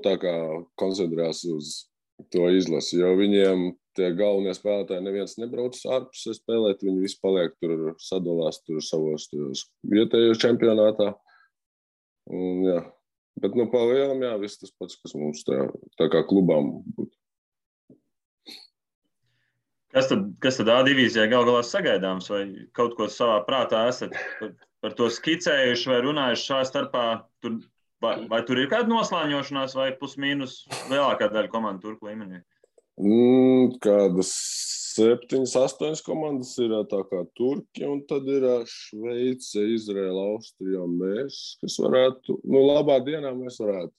Speaker 4: tā kā koncentrēs uz to izlasi, jo viņiem tie galvenie spēlētāji neviens nebrauc ārpusē spēlēt, viņi visi paliek tur, sadalās tur savos vietējos čempionātā. Un, jā. Bet pa lielam, jā, viss tas pats, kas mums tā kā klubām būtu.
Speaker 1: Kas tad A divīzijā gal galā sagaidāms, vai kaut ko savā prātā esat par to skicējuši vai runājuši šā starpā? Vai tur ir kāda noslāņošanās vai plus-mīnus lielākā daļa komandu turku līmenī?
Speaker 4: Kādas 7, 8 komandas ir tā kā Turki, un tad ir Šveice, Izraela, Austrija un mēs, kas varētu, labā dienā mēs varētu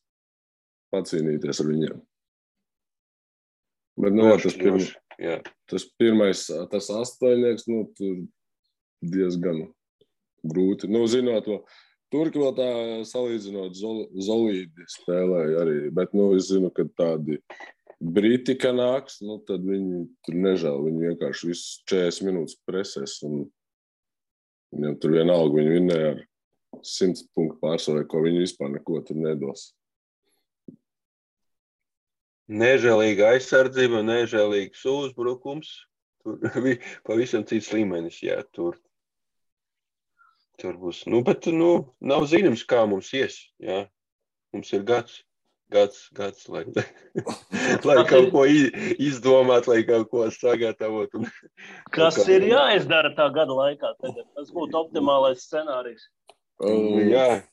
Speaker 4: pacīnīties ar viņiem. Bet, tas pirmais, tas 8, tur diezgan grūti. Zinot to, Turki vēl tā salīdzinot Zolīdi spēlēja arī, bet, es zinu, ka tādi Briti, ka nāks, tad viņi tur nežēl, viņi vienkārši visu 40 minūtes presēs, un viņam tur vienalga, viņi vinnēja ar 100 punktu pārsvarē, ko viņi vispār neko tur nedos.
Speaker 3: Nežēlīga aizsardzība, nežēlīgs uzbrukums, tur pavisam cits līmenis, jā, tur būs, bet, nav zināms, kā mums ies, jā, mums ir gads, lai kaut ko izdomāt, lai kaut ko sagatavot.
Speaker 2: Kas ir jāizdara tā gada laikā tagad? Tas būtu optimālais scenārijs.
Speaker 3: Jā,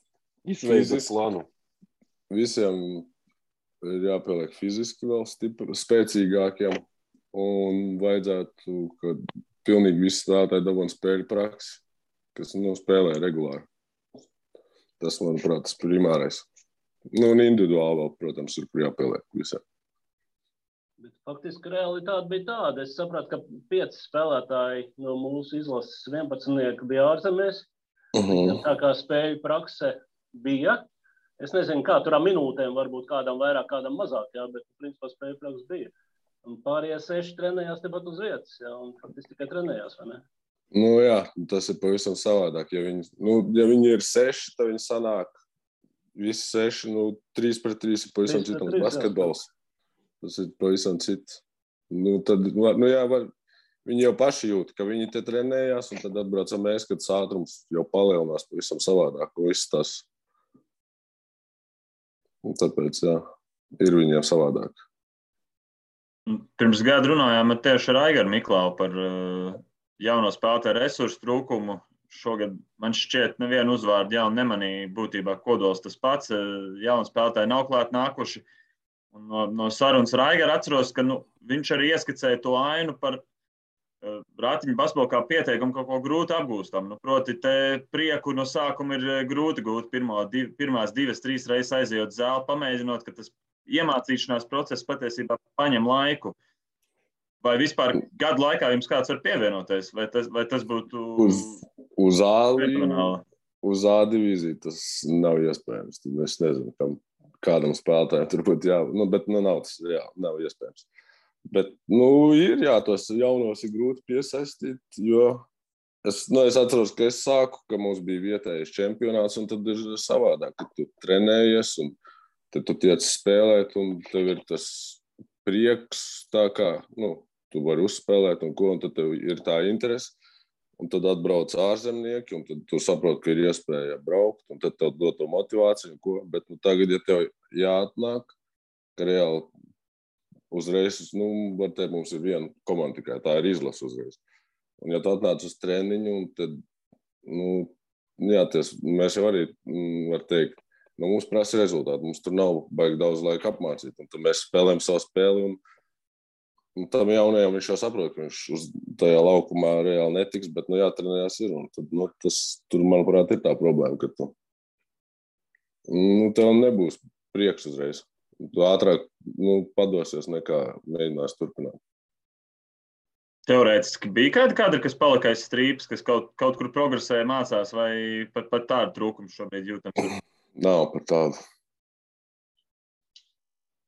Speaker 3: izveidot plānu.
Speaker 4: Visiem ir jāpieliek fiziski vēl spēcīgākiem un vajadzētu, ka pilnīgi visi spēlētāji dabūtu spēļu praksi, kas spēlē regulāri. Tas, manuprāt, tas primārais. Un individuāli vēl, protams, ir, kur jāpieliek visiem.
Speaker 2: Bet faktiski realitāte bija tāda. Es sapratu, ka 5 spēlētāji no mūsu izlases 11 bija ārzemēs. Tā kā spēļu prakse bija. Es nezinu, kā tur minūtēm varbūt kādam vairāk, kādam mazāk, jā, bet principā spēļu prakse bija. Un pārējie 6 trenējās tepat uz vietas, jā, un faktiski tikai trenējās, vai ne?
Speaker 4: Jā, tas ir pavisam savādāk. Ja viņi ir 6, tad viņi sanāk visi 6, 3 pret 3 ir pavisam citams basketbols. Tas ir pavisam cits. Tad, viņi jau paši jūt, ka viņi te trenējās, un tad atbraucam mēs, kad ātrums jau palielinās pavisam savādāk. Viss tas. Un tāpēc, jā, ir viņiem savādāk.
Speaker 1: Pirms gada runājām tieši ar Aigaru Miklau par jauno spēlētāju resursu trūkumu. Šogad man šķiet nevienu uzvārdu jaunu nemanīja, būtībā kodols tas pats. Jauni spēlētāji nav klāt nākuši. Un no sarunas ar Aigaru atceros, ka viņš arī ieskicēja to ainu par ratiņu basketbolu kā pieteikumu kaut ko grūti apgūstam. Proti, te prieku no sākuma ir grūti gūt pirmās 2, 3 reizes aizejot zāli, pamēģinot, ka tas iemācīšanās process patiesībā paņem laiku. Vai vispār gadu laikā jums kāds var pievienoties? Vai tas būtu
Speaker 4: uz A divīziju tas nav iespējams. Tad es nezinu, kam kādam spēlētājam tur būtu bet nav tas, nav iespējams. Bet, ir, tos jaunos ir grūti piesaistīt, jo es atceros, ka es sāku, ka mums bija vietējais čempionāts, un tad ir savādāk, ka tu trenējies, un tad tu tiec spēlēt, un tev ir tas prieks, tā kā, tu vari uzspēlēt, un tad tev ir tā interese, un tad atbrauc ārzemnieki, un tad tu saproti, ka ir iespēja braukt, un tad tev dod to motivāciju, bet tagad, ja tev jāatnāk, ka reāli uzreiz, var teikt, mums ir viena komanda tikai, tā ir izlase uzreiz. Un ja tu atnāc uz treniņu, un tad, mēs jau arī, var teikt, mums prasa rezultāti, mums tur nav baigi daudz laika apmācīt, un tad mēs spēlējam savu spēli, un tam jaunajam viņš jau saprot, ka viņš uz tajā laukumā reāli netiks, bet, jātrenējās ir, un tad, tur, manuprāt, ir tā problēma, ka tu, tev nebūs prieks uzreiz. Tu ātrāk padosies nekā mēģinās turpināt.
Speaker 1: Teorētiski bija kādi kadri, kas palika aiz strīpas, kas kaut kur progresēja, mācās, vai pat tādu trūkumu šobrīd jūtams?
Speaker 4: Nav par tādu.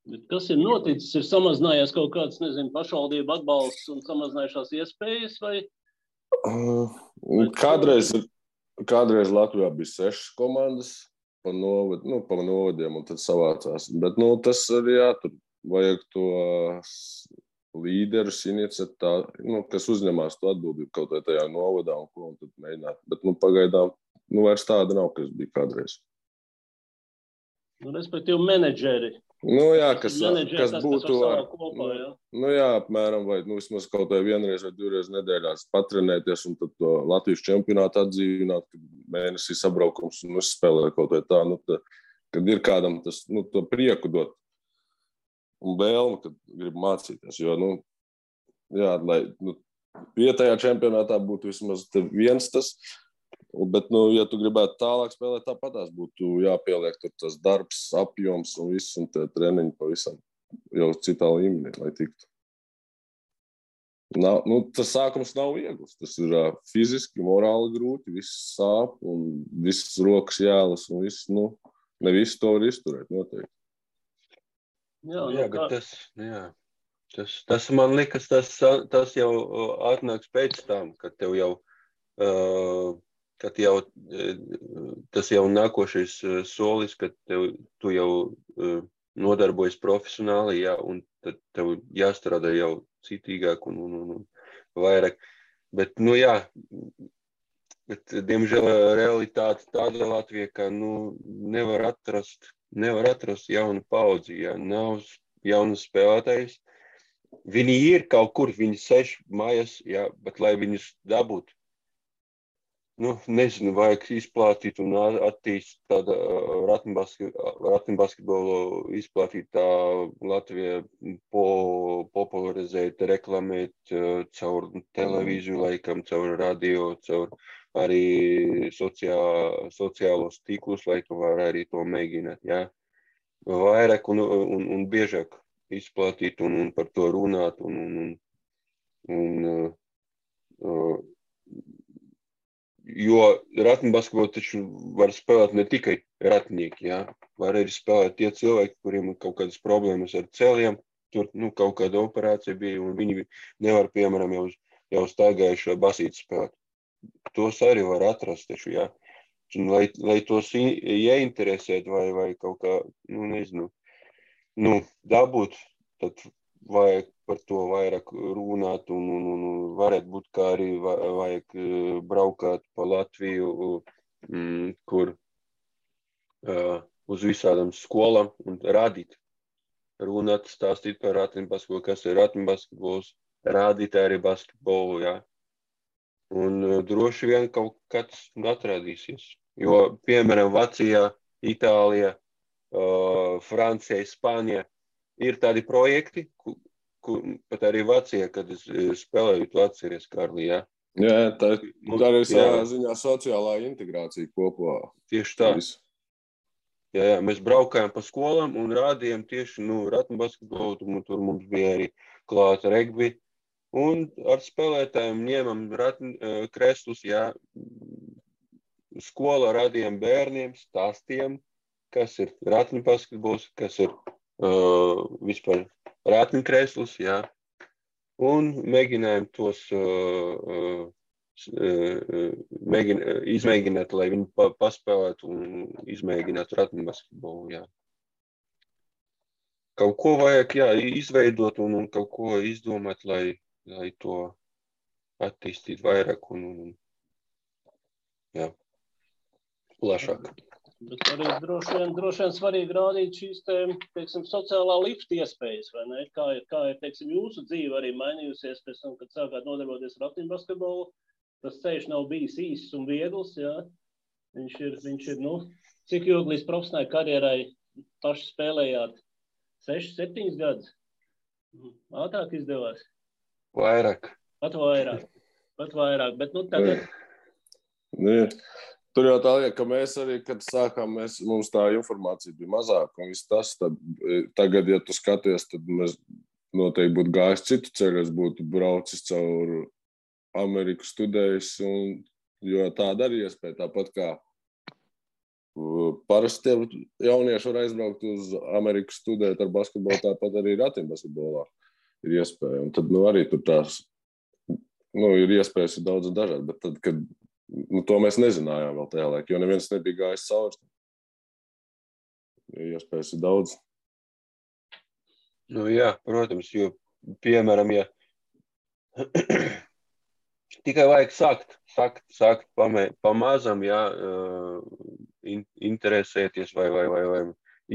Speaker 2: Bet kas ir noticis? Ir samazinājies kaut kāds, pašvaldību atbalsts un samazinājušās iespējas, vai?
Speaker 4: Kādreiz Latvijā bija 6 komandas, pa novadiem, un tad savācās. Bet, tas arī tur vajag to līderus iniciatā, kas uzņemās to atbildību kaut vai tajā novadā un tad mēģināt. Bet, pagaidām, vairs tāda nav, kas bija kādreiz.
Speaker 2: Respektīvi menedžeri.
Speaker 4: Kas būtu apmēram, vai vismaz kaut vai vienreiz vai 2 reizes nedēļā patrenēties un tad to Latvijas čempionātu atdzīvināt, kad mēnesī sabraukums un uzspēlē kaut vai tā, kad ir kādam tas, to prieku dot un vēlmi, kad grib mācīties, jo, lai vietējā čempionātā būtu vismaz viens tas, bet, ja tu gribētu tālāk spēlēt, tāpatās būtu jāpieliek tur tas darbs, apjoms un viss, un tie treniņi pavisam jau citā līmenī, lai tiktu. Tas sākums nav viegls. Tas ir fiziski, morāli grūti, viss sāp un visas rokas jālas un viss, ne visu to var izturēt, noteikti.
Speaker 3: Bet tas man likas, tas jau atnāks pēc tam, kad tev jau tas jau nākošais solis, kad tu jau nodarbojas profesionāli, un tad tev jāstrādā jau citīgāk un vairāk. Bet, bet, diemžēl, realitāte tāda Latvijā, ka nevar atrast jaunu paudzi, nav jaunu spēlētājus. Viņi ir kaut kur, viņi sēž mājās, bet lai viņus dabūtu, nezinu, vajag izplātīt un attīstīt tādu ratiņbasketbolu, izplātīt tā Latvijā, popularizēt, reklamēt caur televīziju laikam, caur radio, caur arī sociālos tīklus laikam var arī to mēģināt, vairāk un biežāk izplātīt un par to runāt jo ratiņbasketbolu taču var spēlēt ne tikai ratinieki, var arī spēlēt tie cilvēki, kuriem ir kaut kādas problēmas ar ceļiem, tur kaut kāda operācija bija, un viņi nevar, piemēram, jau staigājušo basīti spēlēt. Tos arī var atrast taču, lai tos ieinteresēt vai kaut kā, nezinu, dabūt, tad vajag par to vairāk runāt un varētu būt, kā arī vajag braukāt pa Latviju, kur uz visādām skolām un rādīt, runāt, stāstīt par ratiņbasketbolu, kas ir ratiņbasketbols, rādīt arī basketbolu, Un droši vien kaut kāds atradīsies, jo, piemēram, Vācijā, Itālijā, Francijā, Spānijā ir tādi projekti, pat arī Vācijā, kad es spēlēju, tu atceries, Kārli,
Speaker 4: tā arī savā ziņā sociālā integrācija kopā.
Speaker 3: Tieši tā. Mēs braukājām pa skolām un rādījām tieši, ratiņbasketbolu, un tur mums bija arī klāta regbi, un ar spēlētājiem ņēmam kreslus, skolā rādījām bērniem, stāstījām, kas ir ratiņbasketbols, kas ir vispār ratiņkrēsls, jā. Un mēģinājām tos izmēģināt, lai viņi paspēlētu un izmēģinātu ratiņbasketbolu, jā. Kaut ko vajag, jā, izveidot un kaut ko izdomāt, lai to attīstītu vairāk un jā, plašāk.
Speaker 2: Bet arī droši vien svarīgi rādīt šīs, teiksim, sociālā lifta iespējas, vai ne? Kā ir, teiksim, jūsu dzīve arī mainījusies pēc tam, kad sākāt nodarboties ar ratiņbasketbolu. Tas ceļš nav bijis īsts un viegls, jā. Viņš ir, cik ilgi līdz profesionālai karjerai paši spēlējāt? 6-7 gadus? Ātrāk izdevās?
Speaker 3: Vairāk.
Speaker 2: Pat vairāk, bet tagad...
Speaker 4: Tur jau tā lieta, ka mēs arī, kad sākām, mums tā informācija bija mazāka, un viss tas, tad tagad, ja tu skaties, tad mēs noteikti būtu gājis citu ceļu, es būtu braucis caur Ameriku studējis, jo tāda arī iespēja, tāpat kā parasti jaunieši var aizbraukt uz Ameriku studēt ar basketbolu, tāpat arī ratiņbasketbolā ir iespēja, un tad, arī tur tās, ir iespējas daudz un dažādi, bet tad, kad to mēs nezinājām vēl tajā laikā, jo neviens nebija gājis cauri. Iespējas ir daudz.
Speaker 3: Jā, protams, jo, piemēram, ja tikai vajag sākt pamazam, jā, interesēties vai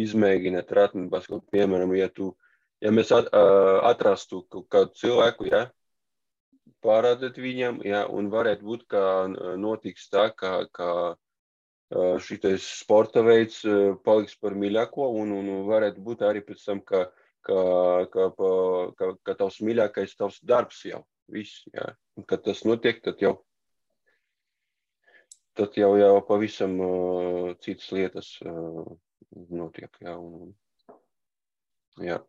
Speaker 3: izmēģināt ratiņbasketbolu, piemēram, ja mēs atrastu kādu cilvēku, jā, parādīt viņam, jā, un varētu būt, ka notiks tā, ka šitais sporta veids paliks par mīļāko, un varētu būt arī pēc tam, ka tavs mīļākais tavs darbs jau, viss, jā. Un kad tas notiek, tad jau pavisam citas lietas notiek, jā. Jā.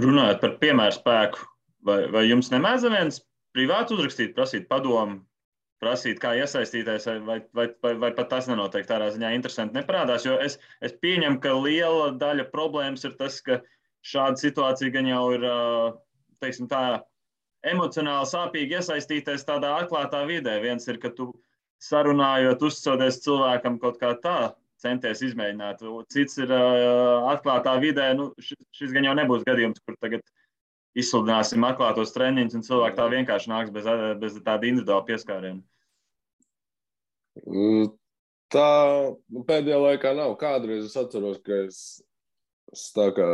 Speaker 1: Runājot par piemēru spēku, vai jums nemēdz viens privāti uzrakstīt, prasīt padomu, prasīt, kā iesaistīties, vai pat tas nenotiek tādā ziņā interesanti neparādās, jo es pieņemu, ka liela daļa problēmas ir tas, ka šāda situācija gan jau ir, teiksim tā, emocionāli sāpīgi iesaistīties tādā atklātā vidē. Viens ir, ka tu sarunājot, uzticoties cilvēkam kaut kā tā, centies izmēģināt. Cits ir atklātā vidē, šis gan jau nebūs gadījums, kur tagad izsludināsim atklātos treniņus, un cilvēki tā vienkārši nāks bez tāda individuāla pieskāriena.
Speaker 4: Tā pēdējā laikā nav. Kādreiz es atceros, ka es tā kā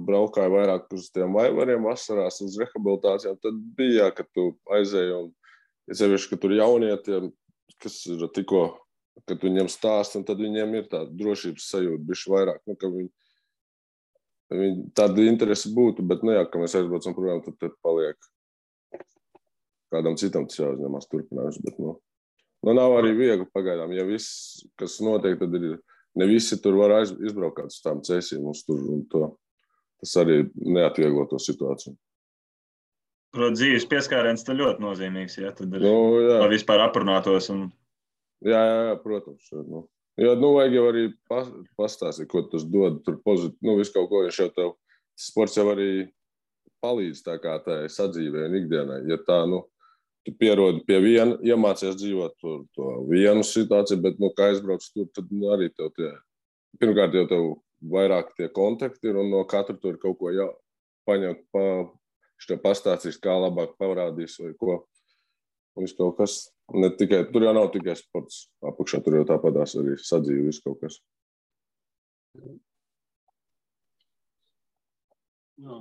Speaker 4: braukāju vairāk uz tiem vaivariem vasarās, uz rehabilitācijām, tad bija, ka tu aizēji, un es sevišķi, ka tur jaunietiem, kas ir tikko, kad viņiem stāst, un tad viņiem ir tāda drošības sajūta, bišķi vairāk, ka viņi tāda interese būtu, bet, ka mēs aizbraucam projām, tad paliek kādam citam tas jāuzņemās turpinājums, bet, nav arī viegli pagaidām. Ja viss, kas notiek, tad ne visi tur var izbraukt uz tām cēsīm mums tur, un tas arī neatvieglo to situāciju.
Speaker 1: Protams, dzīves pieskāriens tad ļoti nozīmīgs, ja tad ir vispār aprunātos.
Speaker 4: Jā, protams. Jo, vajag jau arī pastāstīt, ko tas dod, tur pozitīvi, visu kaut ko, viņš jau tev, sports jau arī palīdz tā kā tā sadzīvē un ikdienai. Ja tā, tu pierodi pie viena, iemācies dzīvot to vienu situāciju, bet, kā aizbrauc tur, tad arī tev pirmkārt jau tev vairāk tie kontakti ir, un no katra tur kaut ko paņemt, viņš tev pastāstīs, kā labāk parādīs vai ko. Un viss kaut kas. Tur jau nav tikai sports apakšā, tur jau tāpatās arī sadzīve, viss kaut kas.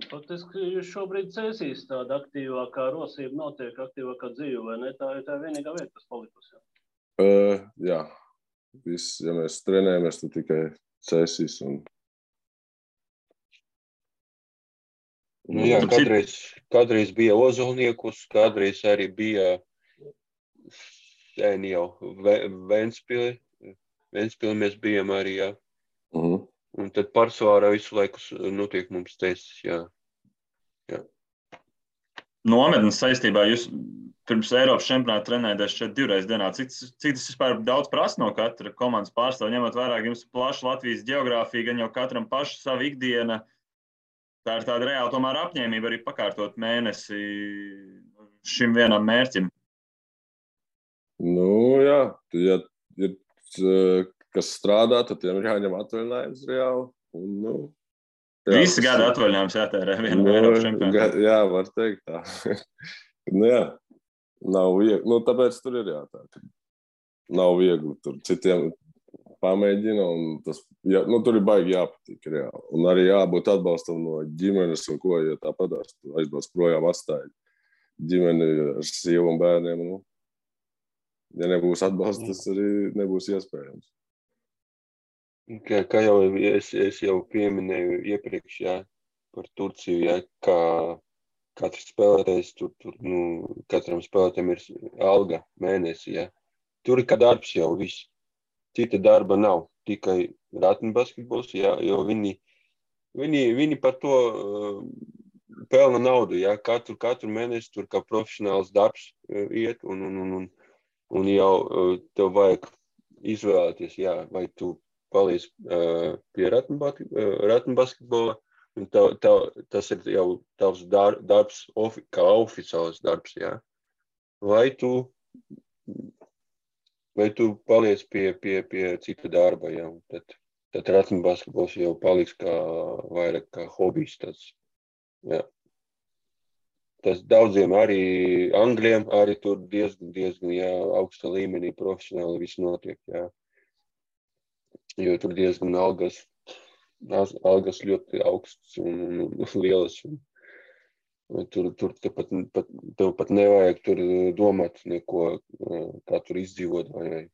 Speaker 2: Faktiski jūs šobrīd cēsīs tāda aktīvākā rosība notiek, aktīvākā dzīve, vai ne? Tā ir tā vienīgā vieta, kas palikusi.
Speaker 4: Jā. Viss, ja mēs trenējamies, tad tikai cēsīs.
Speaker 3: Jā, kādreiz bija Ozolniekus, kādreiz arī bija sen jau Ventspili. Ventspili mēs bijām arī, jā. Un tad pārsvarā visu laiku notiek mums cēsis, jā.
Speaker 1: nometnes saistībā. Jūs pirms Eiropas čempionāta trenēties šeit 2 reizes dienā. Cik tas vispār daudz prasa no katra komandas pārstāvja, ņemot vērā, ka jums plaša Latvijas geogrāfija, gan jau katram paša sava ikdiena. Tā ir tāda reāla tomēr apņēmība arī pakārtot mēnesi šim vienam mērķim.
Speaker 4: Nu, jā, ja ir kas strādā, tad tiem ir jāņem atvaļinājums reāli. Un, nu, jā,
Speaker 1: Visi gada atvaļinājums jātērē vienam Eiropas čempionātam.
Speaker 4: Jā, var teikt tā. Nu, jā, nav viegli. Nu, tāpēc tur ir tā, ka nav viegli. Tur citiem pamēģina, un tas, jā, nu, tur ir baigi jāpatīk reāli. Un arī jābūt atbalstam no ģimenes, un ko, ja tāpatās, tu aizbrauc projām atstāji ģimeni ar sievu un bērniem. Nu, ja nebūs atbalsts, tas arī nebūs iespējams.
Speaker 3: Kā jau es jau pieminēju iepriekš, jā, par Turciju, jā, kā katrs spēlētājs, tur katram spēlētājam ir alga mēnesi, jā. Tur ir kā darbs jau viss. Cita darba nav, tikai ratnbasketbols, jā, jo viņi par to pelna naudu, jā, katru mēnesi tur kā profesionāls darbs iet, un jau tev vajag izvēlēties, jā, vai tu paliec pie ratnbasketbola, un tas ir jau tavs darbs, kā oficiāls darbs, jā, vai tu paliec pie cita darba, jā, tad ratnbasketbols jau paliks vairāk kā hobijs, tas, jā. Tas daudziem arī Angļiem, arī tur diezgan, jā, augsta līmenī profesionāli viss notiek, jā. Jo tur diezgan algas ļoti augsts un lielas. Tur tev pat nevajag tur domāt neko, kā tur izdzīvot, vai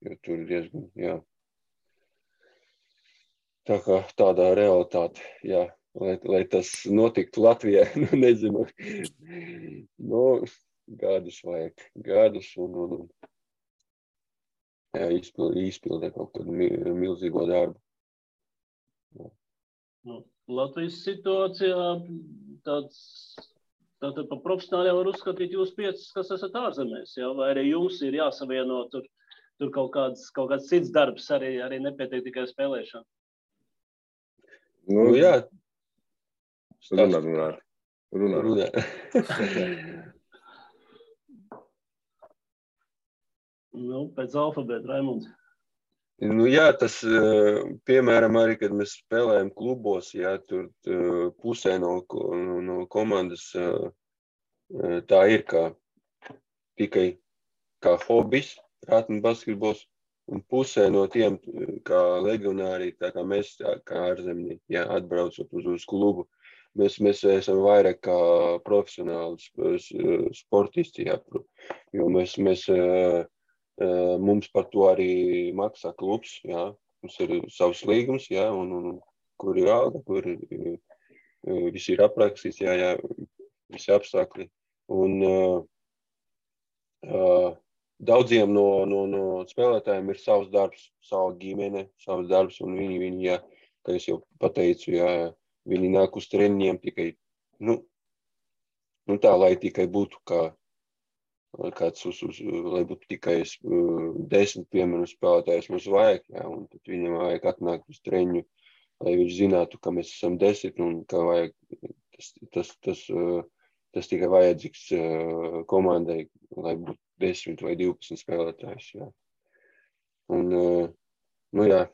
Speaker 3: jo tur diezgan, jā. Tā kā tādā realitāte, jā, lai tas notiktu Latvijā, nu nezinu, nu, gadus vajag, un jā, izpildē kaut kādu milzīgo darbu.
Speaker 2: Nu, Latvijas situācijā tātad pa profesionāļiem var uzskatīt jūs 5, kas esat ārzemēs, jā? Vai arī jums ir jāsavieno tur kaut kāds cits darbs, arī nepietiek tikai spēlēšana?
Speaker 3: Nu, jā.
Speaker 4: Runā.
Speaker 2: Nu, pēc alfabēta, Raimunds.
Speaker 3: Nu, jā, tas, piemēram, arī, kad mēs spēlējam klubos, jā, tur pusē no komandas tā ir tikai kā hobijs, ratnbasketbols, un pusē no tiem kā legionāri, tā kā mēs, kā ārzemnieki, jā, atbraucot uz klubu, mēs esam vairāk kā profesionāli sportisti, jā, jo mums par to arī maksā klubs, jā. Mums ir savs līgums, jā, un kur ir alga, kur viss ir aprakstīts, jā, visi apstākļi. Un daudziem no spēlētājiem ir savs darbs, sava ģimene, savs darbs, un viņi, jā, kā es jau pateicu, jā, viņi nāk uz treniņiem tikai, nu tā, lai tikai būtu kāds lai būtu tikai 10, piemēram, spēlētājs mums vajag, jā, un tad viņam vajag atnākt uz treniņu, lai viņš zinātu, ka mēs esam 10, un ka vajag, tas tikai vajadzīgs komandai, lai būtu 10 vai 12 spēlētājs, jā. Un, nu jā,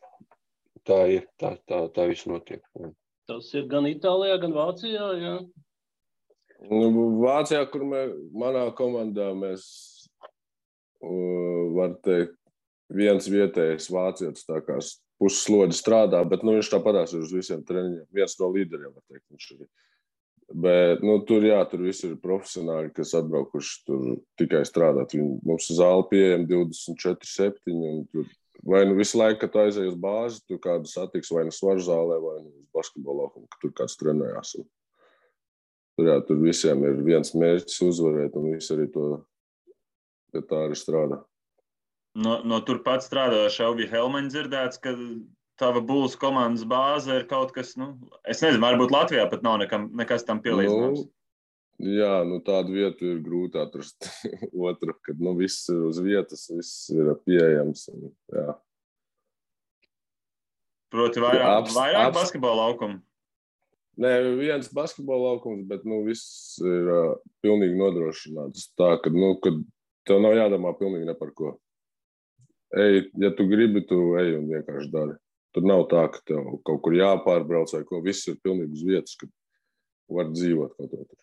Speaker 3: tā ir, tā viss notiek. Jā.
Speaker 2: Tas ir gan Itālijā, gan Vācijā, jā.
Speaker 4: Vācijā, kur manā komandā mēs, var teikt, viens vietējais vācietis tā kā pusslodzi strādā, bet viņš tāpatās ir uz visiem treniņiem. Viens no līderiem, var teikt, viņš ir. Bet, tur viss ir profesionāļi, kas atbraukuši tur tikai strādāt. Mums zāle pieejama 24/7, un tur vai visu laiku, kad tu aizēji uz bāzi, tu kādu satiks vai svaru zālē, vai uz basketbola laukumu, ka tur kāds trenējās. Tur visiem ir viens mērķis uzvarēt, un visi arī to tā arī strādā.
Speaker 1: No turpat strādājoša Elvija Helmaņa dzirdēts, ka tava Bulls komandas bāze ir kaut kas, es nezinu, varbūt Latvijā pat nav nekas tam pielīdzināms.
Speaker 4: Jā, tādu vietu ir grūti atrast. Otru, kad viss ir uz vietas, viss ir pieejams. Jā.
Speaker 1: Proti vairāk basketbola laukumu?
Speaker 4: Nē, viens basketbola laukums, bet viss ir pilnīgi nodrošināts. Tā, kad tev nav jādomā pilnīgi ne par ko. Ej, ja tu gribi, tu ej un vienkārši dari. Tur nav tā, ka tev kaut kur jāpārbrauc vai ko. Viss ir pilnīgi uz vietas, kad var dzīvot kaut ko tur.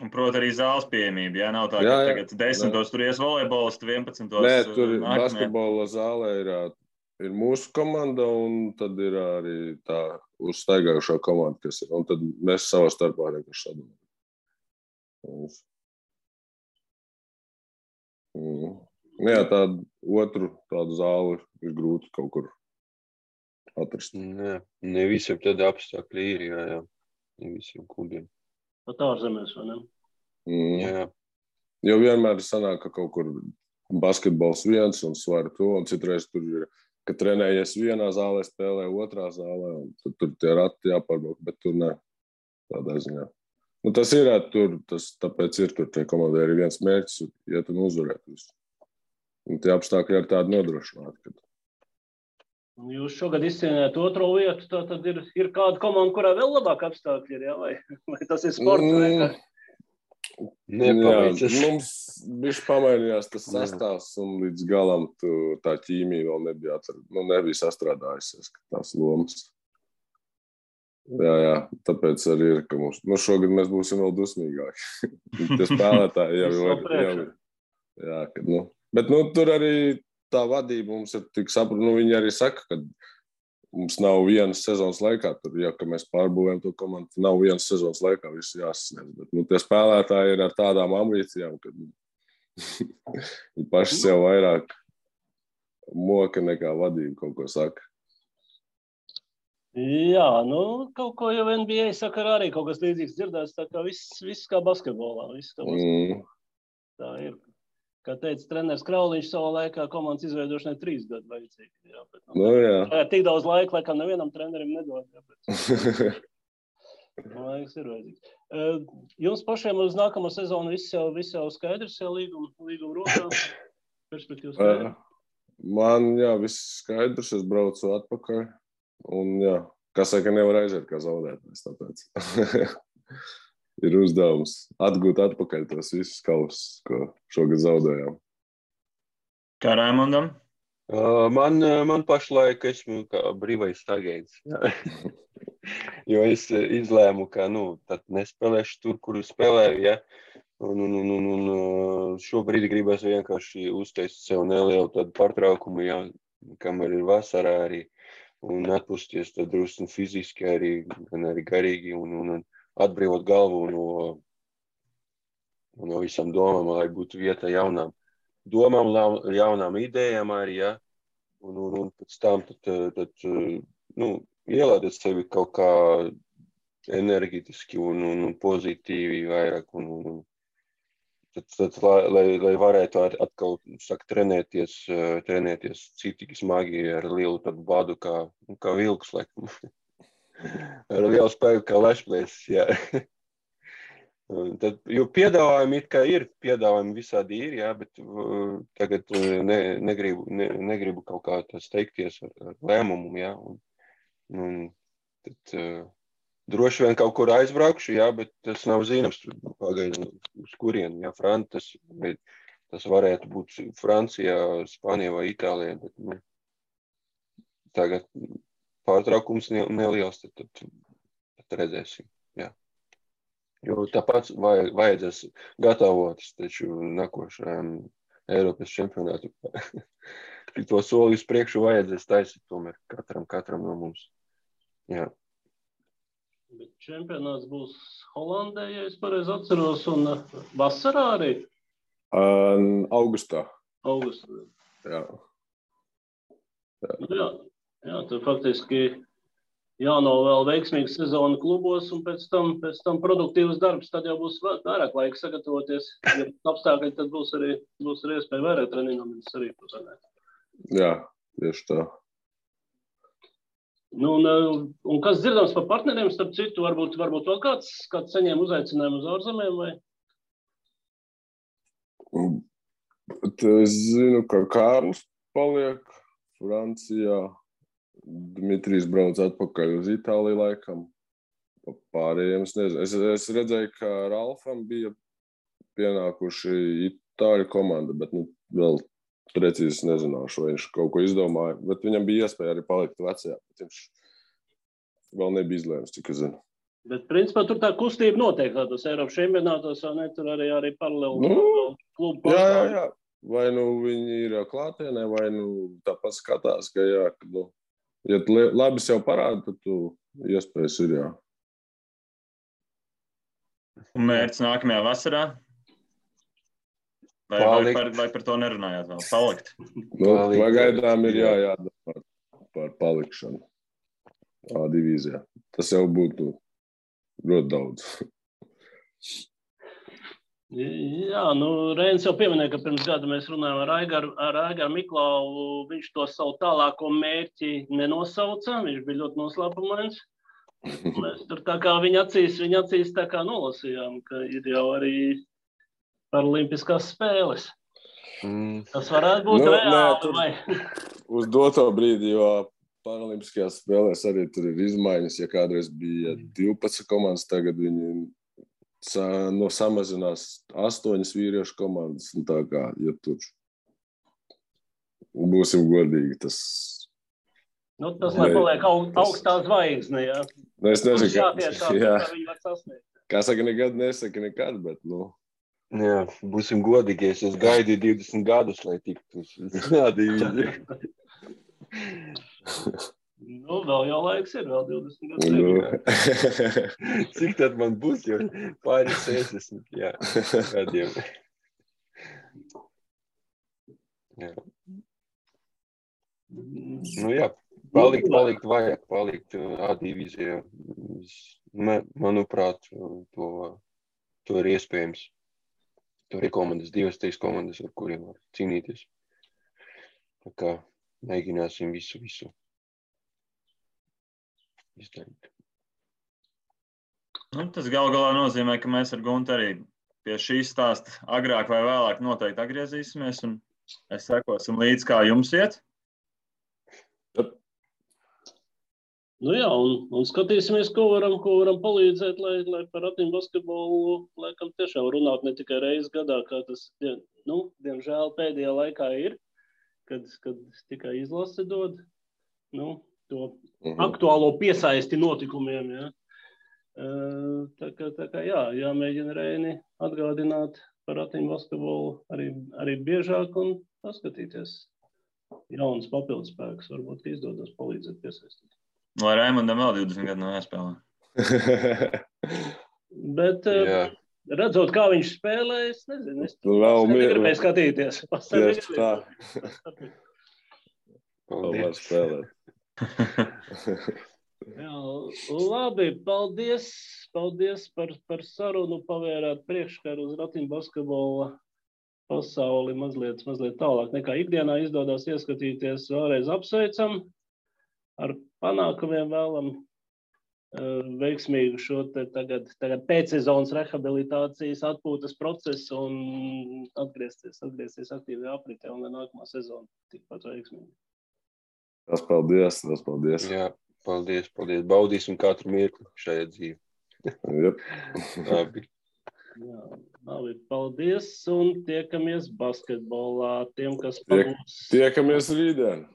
Speaker 1: Un, proti, arī zāles pieejamība. Jā, nav tā, ka tagad 10. tur ies volejbolisti, 11.
Speaker 4: Nē, tur basketbola zālē ir mūsu komanda, un tad ir arī tā uzstaigājušā komanda, kas ir. Un tad mēs savā starpā vienkārši sadalām. Jā, tādu zāli ir grūti kaut kur atrast.
Speaker 3: Ne visiem tādi apstākļi ir, jā. Ne visiem klubiem.
Speaker 2: Pat ārzemēs, vai ne?
Speaker 3: Jā.
Speaker 4: Jo vienmēr sanāk, ka kaut kur basketbols viens un svara to, un citreiz tur ir, ka trenējies vienā zālē, spēlē otrā zālē, un tur tie rati jāpārbauk, bet tur ne. Tādā ziņā. Tas ir tur, tāpēc ir tur tie komandai arī viens mērķis, iet un uzvarēt visu. Un tie apstākļi ir tādi nodrošināti, kad
Speaker 2: Jūs šogad izcīnījāt otro vietu, tad ir kāda komanda, kurā vēl labāk apstākļi ir, jā? Vai tas ir sports vienkārši?
Speaker 3: Nepaveicas.
Speaker 4: Mums bišķi pamainījās tas sastāvs, un līdz galam tā ķīmija vēl nebija sastrādājusies, tās lomas. Jā, tāpēc arī ir, ka mums, šogad mēs būsim vēl dusmīgāki. Tie spēlētāji jau ir. Jā, kad, bet tur arī tā vadība mums ir tik saprot, viņi arī saka, ka mums nav vienas sezonas laikā, tur, ka mēs pārbūvējam to komandu, nav vienas sezonas laikā viss jāsasniedz, bet tie spēlētāji ir ar tādām ambīcijām, ka viņi paši sev vairāk moka nekā vadība kaut ko saka.
Speaker 2: Jā, kaut ko jau NBA saka arī kaut kas līdzīgs dzirdēts, tā kā viss kā basketbolā, Tā ir. Kā teica treneris Krauliņš savā laikā, komandas izveidošanai 3 gadu vajadzīgi. Jā. Tik daudz laika, laikam nevienam trenerim nedod. Laiks ir vajadzīgs. Jums pašiem uz nākamo sezonu viss jau skaidrs, jau līguma rokā? Perspektīvas skaidrs?
Speaker 4: Man, viss skaidrs, es braucu atpakaļ. Un, kā saka, nevar aiziet kā zaudētājs, tāpēc. Ir uzdevums atgūt atpakaļ tos visus kausus, ko šogad zaudējām.
Speaker 1: Kā Raimondam?
Speaker 3: Man pašlaik esmu kā brīvais agents. Jo es izlēmu, ka tad nespēlēšu tur, kur spēlēju. Ja? Un šobrīd gribēs vienkārši uztaisīt sev nelielu tādu pārtraukumu, kamēr ir vasarā arī. Un atpūsties tad drusku fiziski arī, gan arī garīgi. Un atbrīvot galvu no visām domām, lai būtu vieta jaunām domām, jaunām idejām arī, ja? Un pēc tam tad ielādēt sevi kaut kā enerģetiski un pozitīvi vairāk. Tad lai varētu atkal trenēties citīgi smagi ar lielu tādu badu kā vilks, laikam. Ar lielu spēku kā lešplēs, jā. Jo piedāvājumi it kā ir, piedāvājumi visādi ir, jā, bet tagad negribu kaut kā tā steigties ar lēmumu, jā. Un tad droši vien kaut kur aizbraukšu, jā, bet tas nav zināms pagaidām uz kurienu, jā, tas varētu būt Francijā, Spānijā vai Itālijā, bet tagad pārtraukums neliels, tad redzēsim. Jā. Jo tāpat vajadzēs gatavoties taču nākošajam Eiropas čempionātu. To soli uz priekšu vajadzēs taisīt tomēr katram no mums. Jā.
Speaker 2: Bet čempionāts būs Holandē, ja es pareizi atceros, un vasarā arī?
Speaker 4: Augustā.
Speaker 2: Jā. Jā, tad faktiski jānovēl veiksmīga sezona klubos un pēc tam produktīvs darbs, tad jau būs vairāk laika sagatavoties. Ja apstākļi, tad būs arī iespēja vairāk treniņoties arī pusēnē.
Speaker 4: Jā, tieši tā.
Speaker 2: Nu, un kas dzirdams par partneriem, starp citu, varbūt vēl kāds saņēma uzaicinājumu uz ārzemēm, vai?
Speaker 4: Es zinu, ka Kārlis paliek Francijā, Dmitrijs brauc atpakaļ uz Itāliju laikam. Pārējiem es nezinu. Es redzēju, ka Ralfam bija pienākuši Itāļu komanda, bet vēl precīzi nezināšu, vai viņš kaut ko izdomāja. Bet viņam bija iespēja arī palikt vecajā. Viņš vēl nebija izlēms, cik es zinu.
Speaker 2: Bet, principā, tur tā kustība notiek tādos Eiropas čempionātos, vai ne? Tur arī paralēli klubu pārstāvji.
Speaker 4: Jā. Vai viņi ir klātienē, vai tāpat skatās, ka jā, ja labi sev parāda, tad tu iespējas ir, jā.
Speaker 1: Un mērķis nākamajā vasarā? Vai par to nerunājāt vēl? Palikt?
Speaker 4: Pagaidām ir jādomā par palikšanu A divīzijā. Tas jau būtu ļoti daudz.
Speaker 2: Jā, Reinis jau pieminēja, ka pirms gada mēs runājām ar Aigaru Miklauvu. Viņš to savu tālāko mērķi nenosauca. Viņš bija ļoti noslēpumains. Mēs tur tā kā viņa acīs tā kā nolasījām, ka ir jau arī paralimpiskās spēles. Tas varētu būt reāli, vai?
Speaker 4: Uz doto brīdi, jo paralimpiskajās spēlēs arī tur ir izmaiņas. Ja kādreiz bija 12 komandas, tagad viņi samazinās 8 vīriešu komandas. Un tā kā, ja tur būsim godīgi, tas...
Speaker 2: Tas lai paliek augstā zvaigzne, jā.
Speaker 4: Es nezinu,
Speaker 2: kā
Speaker 4: saka, nekad nesaka nekad, bet,
Speaker 3: Jā, būsim godīgi, es gaidīju 20 gadus, lai tiktu uz divīziju.
Speaker 2: Vēl jau laiks ir, vēl 20 gadus.
Speaker 3: Cik tad man būs, jo pāris 60, gadiem. Palikt vajag, palikt A divīzijā. Manuprāt, to ir iespējams. Tur ir komandas, 2-3 komandas, ar kuriem var cīnīties. Tā kā mēģināsim visu izdarīt.
Speaker 1: Tas galā nozīmē, ka mēs ar Guntu arī pie šī stāsta agrāk vai vēlāk noteikti atgriezīsimies un sekosim līdz, kā jums iet.
Speaker 2: Jā, un skatīsimies, ko varam palīdzēt, lai par Ratiņu basketbolu laikam tiešām runāt ne tikai reizi gadā, kā tas, diemžēl pēdējā laikā ir, kad tikai izlase dod, to aktuālo piesaisti notikumiem, jā. Tā kā jāmēģina Reini atgādināt par Ratiņu basketbolu arī biežāk un paskatīties. Jauns papildus spēks, varbūt izdodas palīdzēt piesaistīt.
Speaker 1: Lai Raimondam vēl 20 gadu nav jāspēlē.
Speaker 2: Bet redzot, kā viņš spēlē, es nezinu. Es negribēju skatīties.
Speaker 4: Tieši tā. Paldies spēlēt.
Speaker 2: Labi, paldies par sarunu, pavērāt priekškaru uz Ratiņu basketbola pasauli mazliet tālāk nekā ikdienā izdodas ieskatīties. Vēlreiz apsveicam. Ar panākumiem vēlam veiksmīgu šo tagad pēcsezonas rehabilitācijas atpūtas procesu un atgriezties aktīvajā apritē un nākamā sezona tikpat veiksmīgi.
Speaker 4: Tas paldies.
Speaker 3: Jā, paldies. Baudīsim katru mirkli šajā dzīvē.
Speaker 4: Labi.
Speaker 2: Labi, paldies un tiekamies basketbolā.
Speaker 4: Tiekamies rītdien.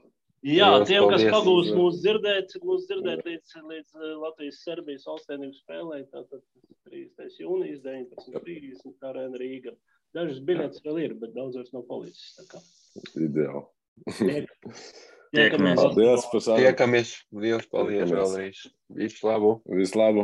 Speaker 2: Jā, tiem, kas pagūs mūs dzirdēt līdz Latvijas-Serbijas valstsvienības spēlē, tātad 30. jūnijas, 19.30 Arēna Rīga. Dažas biļetes vēl ir, bet daudz vairs nav palicis.
Speaker 4: Ideāli.
Speaker 1: Tiekamies.
Speaker 4: Paldies par sarunu.
Speaker 3: Tiekamies. Liels paldies vēlreiz. Visu labu.
Speaker 4: Visu labu.